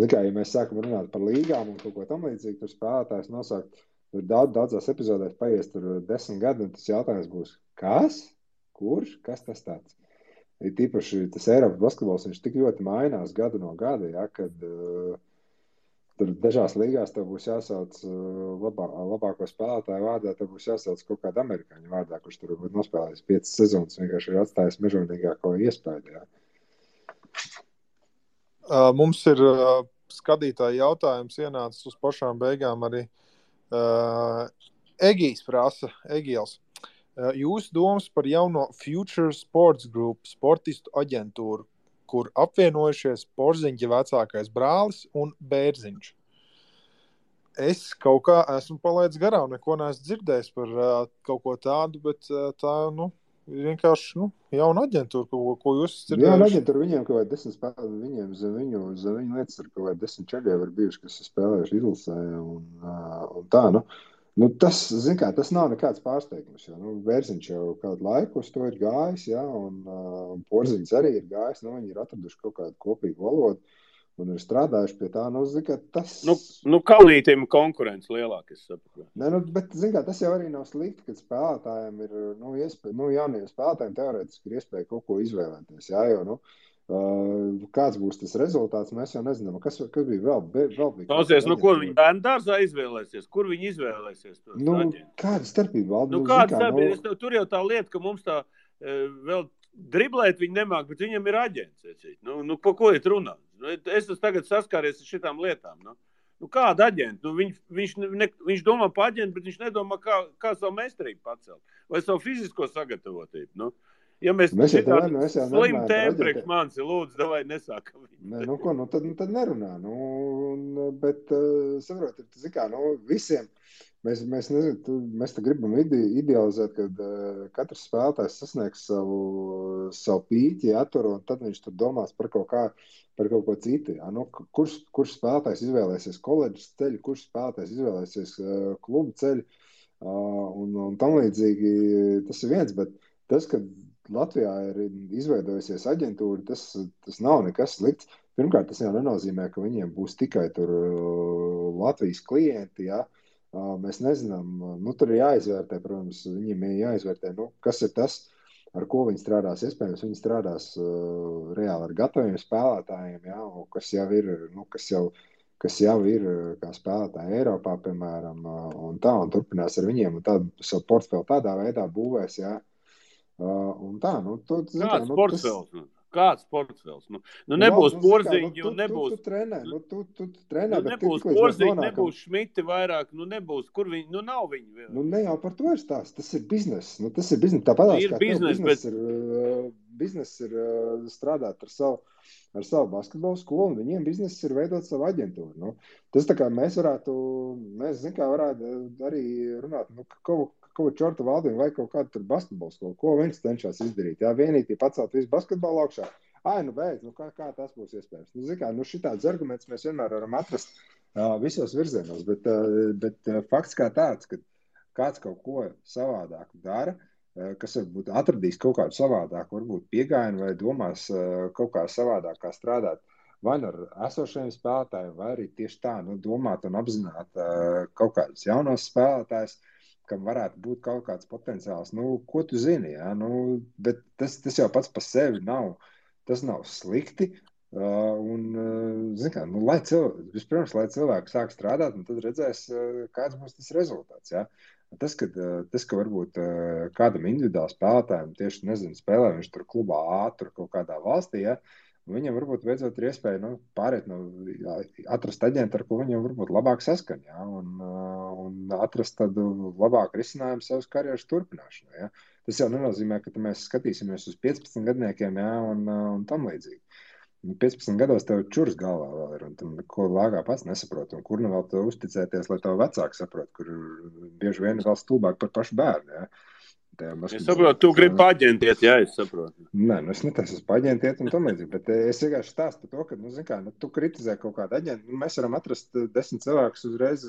zikā, ja mēs sākam runāt par līgām un kaut ko tam līdzīgi, tur spēlētājs nosaukt, tur daudzās epizodēs paies tur 10 gadi, un tas jautājums būs, kas? Kurš? Kas tas tāds? Ir tīpaši tas Eiropas basketbols, viņš tik ļoti mainās gadu no gada, jā, kad tur dažās līgās tev būs jāsauc labāko spēlētāju vārdā, tev būs jāsauc kaut kādu amerikāņu vārdā, kurš tur varbūt nospēlējis 5 sezonas, vienkārši ir atstājis mežonīgāko iespēju. Jā. Mums ir skatītāji jautājums ienācis uz pašām beigām arī. Egijs prasa, Egijals, jūsu domas par jauno Future Sports Group sportistu aģentūru, kur apvienojušies Porziņģa vecākais brālis un Bērziņš. Es kaut kā esmu palaidis garām, neko neesmu dzirdējis par kaut ko tādu, bet tā, nu, vienkārši, jauna aģentūra, ko jūs dzirdējuši. Jauna aģentūra, viņiem kaut vai 10 spēlē, viņiem zem viņu lietas ir kaut vai 10 čeļi var bijuši, kas ir spēlējuši izlasē un tā, tas, zin kā, tas nav nekāds pārsteigums, jo, Vērziņš jau kādu laiku uz to ir gājis, un Porziņš arī ir gājis, viņi ir atraduši kaut kādu kopīgu valodu un ir strādājuši pie tā, zin kā, tas... Kalnītim konkurence lielāk, es saprotu. Bet, zin kā, tas jau arī nav slikti, kad spēlētājiem ir, jauniem spēlētājiem teorētiski ir iespēja kaut ko izvēlēties, jo, kāds būs tas rezultāts, mēs jau nezinām. Kas bija vēl bija? Klausies, ko viņi bērnu dārzā izvēlēsies? Kur viņi izvēlēsies? Kāda starpība? Kāda starpība? Tur jau tā lieta, ka mums tā vēl driblēt viņi nemāk, bet viņam ir aģents. Pa ko iet runāt? Es esmu tagad saskāries ar šitām lietām. Kāda aģenta? Viņš domā pa aģentu, bet viņš nedomā, kā savu meistarību pacelt. Vai savu fizisko sagatavotību. Ja mēs slim tēmu priekš manis, lūdzu, davai nesākam. Tad nerunā. Bet, saprotiet, zin kā, visiem, mēs te gribam idealizēt, kad katrs spēlētājs sasniegs savu pīķi, un tad viņš tur domās par kaut ko citu. Kurš spēlētājs izvēlēsies koledžas ceļu, kurš spēlētājs izvēlēsies klubu ceļu, un tam līdzīgi tas ir viens, bet tas, ka Latvijā ir izveidojusies aģentūra, tas nav nekas slikts. Pirmkārt, tas jau nenozīmē, ka viņiem būs tikai tur Latvijas klienti, Mēs nezinām, tur ir jāizvērtē, protams, viņiem ir jāizvērtē, kas ir tas, ar ko viņi strādās. Iespējams, viņi strādās reāli ar gataviem spēlētājiem, kas jau ir kā spēlētāji Eiropā, piemēram, un turpinās ar viņiem, un tādu savu portfeli tādā veidā būvēs, un tā, Kāds portfels? Kāds portfels? Nebūs Porziņi un nebūs... Tu trenē, bet nebūs Porziņi, nebūs Šmiti vairāk, nebūs, kur viņi, nav viņi vēl. Ne jau par to ir stāsts, tas ir bizness. Tāpatās kā biznes ir strādāt ar savu basketbolu skolu, un viņiem biznes ir veidot savu aģentūru. Tas tā kā mēs varētu arī runāt, kaut čorta valdību vai kaut kādu tur basketbolu skolu, ko viņš cenšas izdarīt. Vienīgi pacelt visu basketbolu augšā. Beidz, kā tas būs iespējams? Šitāds arguments mēs vienmēr varam atrast visos virzienos, bet fakts kā tāds, ka kāds kaut ko savādāk dara, kas varbūt atradīs kaut kādu savādāku, varbūt piegājienu vai domās kaut kā savādāk kā strādāt vai ar esošajiem spēlētājiem, vai arī tieši tā, domāt un apzināt kaut kādus jaunos spēlētājus, kam varētu būt kaut kāds potenciāls, ko tu zini, bet tas jau pats par sevi nav, tas nav slikti, un, vispirms, lai cilvēki sāk strādāt, un tad redzēs, kāds būs tas rezultāts, Tas, ka varbūt kādam individuāli spēlētājiem tieši, spēlē viņš tur klubā A, tur kaut kādā valstī, viņam varbūt beidzot ir iespēja pārēt atrast aģentu, ar ko viņam varbūt labāk saskan, un atrast tādu labāku risinājumu savas karjeras turpināšanai. Tas jau nenozīmē, ka mēs skatīsimies uz 15 gadniekiem, un tam līdzīgi. 15 gados tev čurs galvā vēl ir, un tam ko lāgā pats nesaprot, un kur vēl tev uzticēties, lai tev vecāki saprot, kur bieži vien vēl stulbāk par pašu bērnu, Es saprotu, tu gribi paģentiet, es saprotu. Nē, es netaisu uz paģentiet un tam līdzīgi, bet es vienkārši stāstu par to, ka, tu kritizē kaut kādu aģentu, mēs varam atrast 10 cilvēkus uzreiz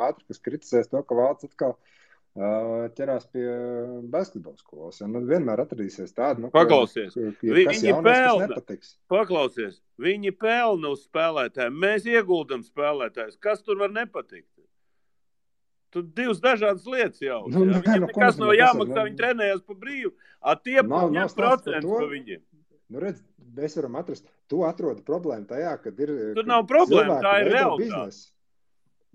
ātri, kas kritizēs to, ka valsts atkal ķerās pie basketbola skolas. Vienmēr atradīsies tādu, Paklausies, kas jaunais, kas nepatiks. Paklausies, viņi pelna uz spēlētājiem, mēs ieguldam spēlētājus. Kas tur var nepatikt? Tur divas dažādas lietas jau. Viņam nekas nav jāmaksā, viņi trenējās pa brīvu. Tie ņem procents pa viņiem. Redz, mēs varam atrast, tu atrodi problēmu tajā, kad ir... Tur nav problēma, tā ir realitāte.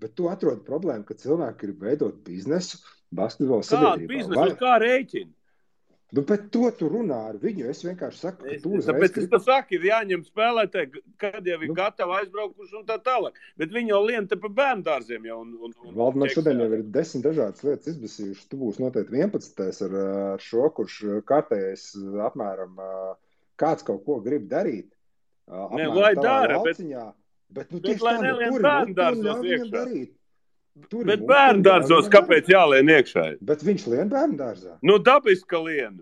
Bet tu atrodi problēmu, ka cilvēki grib veidot biznesu, basketbola sabiedrībā. Kādu biznesu, kā rēķinu? Bet to tu runā ar viņu, es vienkārši saku, ka tu uzreiz... Tāpēc es saku, ir jāņem spēlētāji, kad jau ir gatavi aizbraukuši un tā tālāk. Bet viņi jau lien te pa bērndārziem jau. Valdemar, šodien jau ir 10 dažādas lietas izbasījuši. Tu būsi noteikti 11. ar šo, kurš kārtējais apmēram kāds kaut ko grib darīt. Lai dara, bet lai nelien bērndārzos iekšā. Bet bērndārzos kāpēc jālien iekšā? Bet viņš lien bērndārzā. Dabiski lien.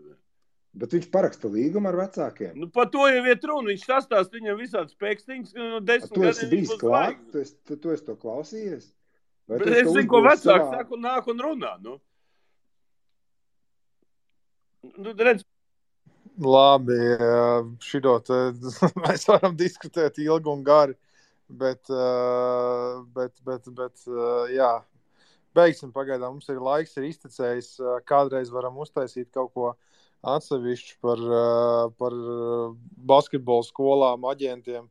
Bet viņš paraksta līgumu ar vecākiem. Nu, par to jau iet runa. Viņš sastāst viņam visādas pēkstiņas, no 10 Tu esi gadiem bijis klāt? Tu esi to klausījies? Vai Bet es zinu, ko vecāks saka un nāk un runā, nu. Nu, redz. Labi, šito te mēs varam diskutēt ilgi un gari, bet jā, beigsim pagaidām. Mums ir laiks, ir iztecējis, kādreiz varam uztaisīt kaut ko atsevišķu par basketbolu skolām, aģentiem.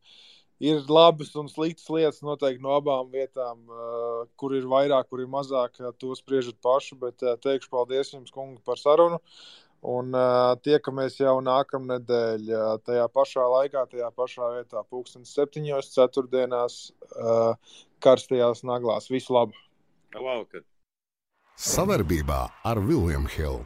Ir labas un sliktas lietas noteikti no abām vietām, kur ir vairāk, kur ir mazāk, to spriežat paši, bet teikšu paldies jums, kungi, par sarunu. Un tiekamies jau nākamnedēļ tajā pašā laikā, tajā pašā vietā, 7:00 ceturtdienās, karstajās naglās. Visu labu! Labvakar! Savarbībā ar William Hill.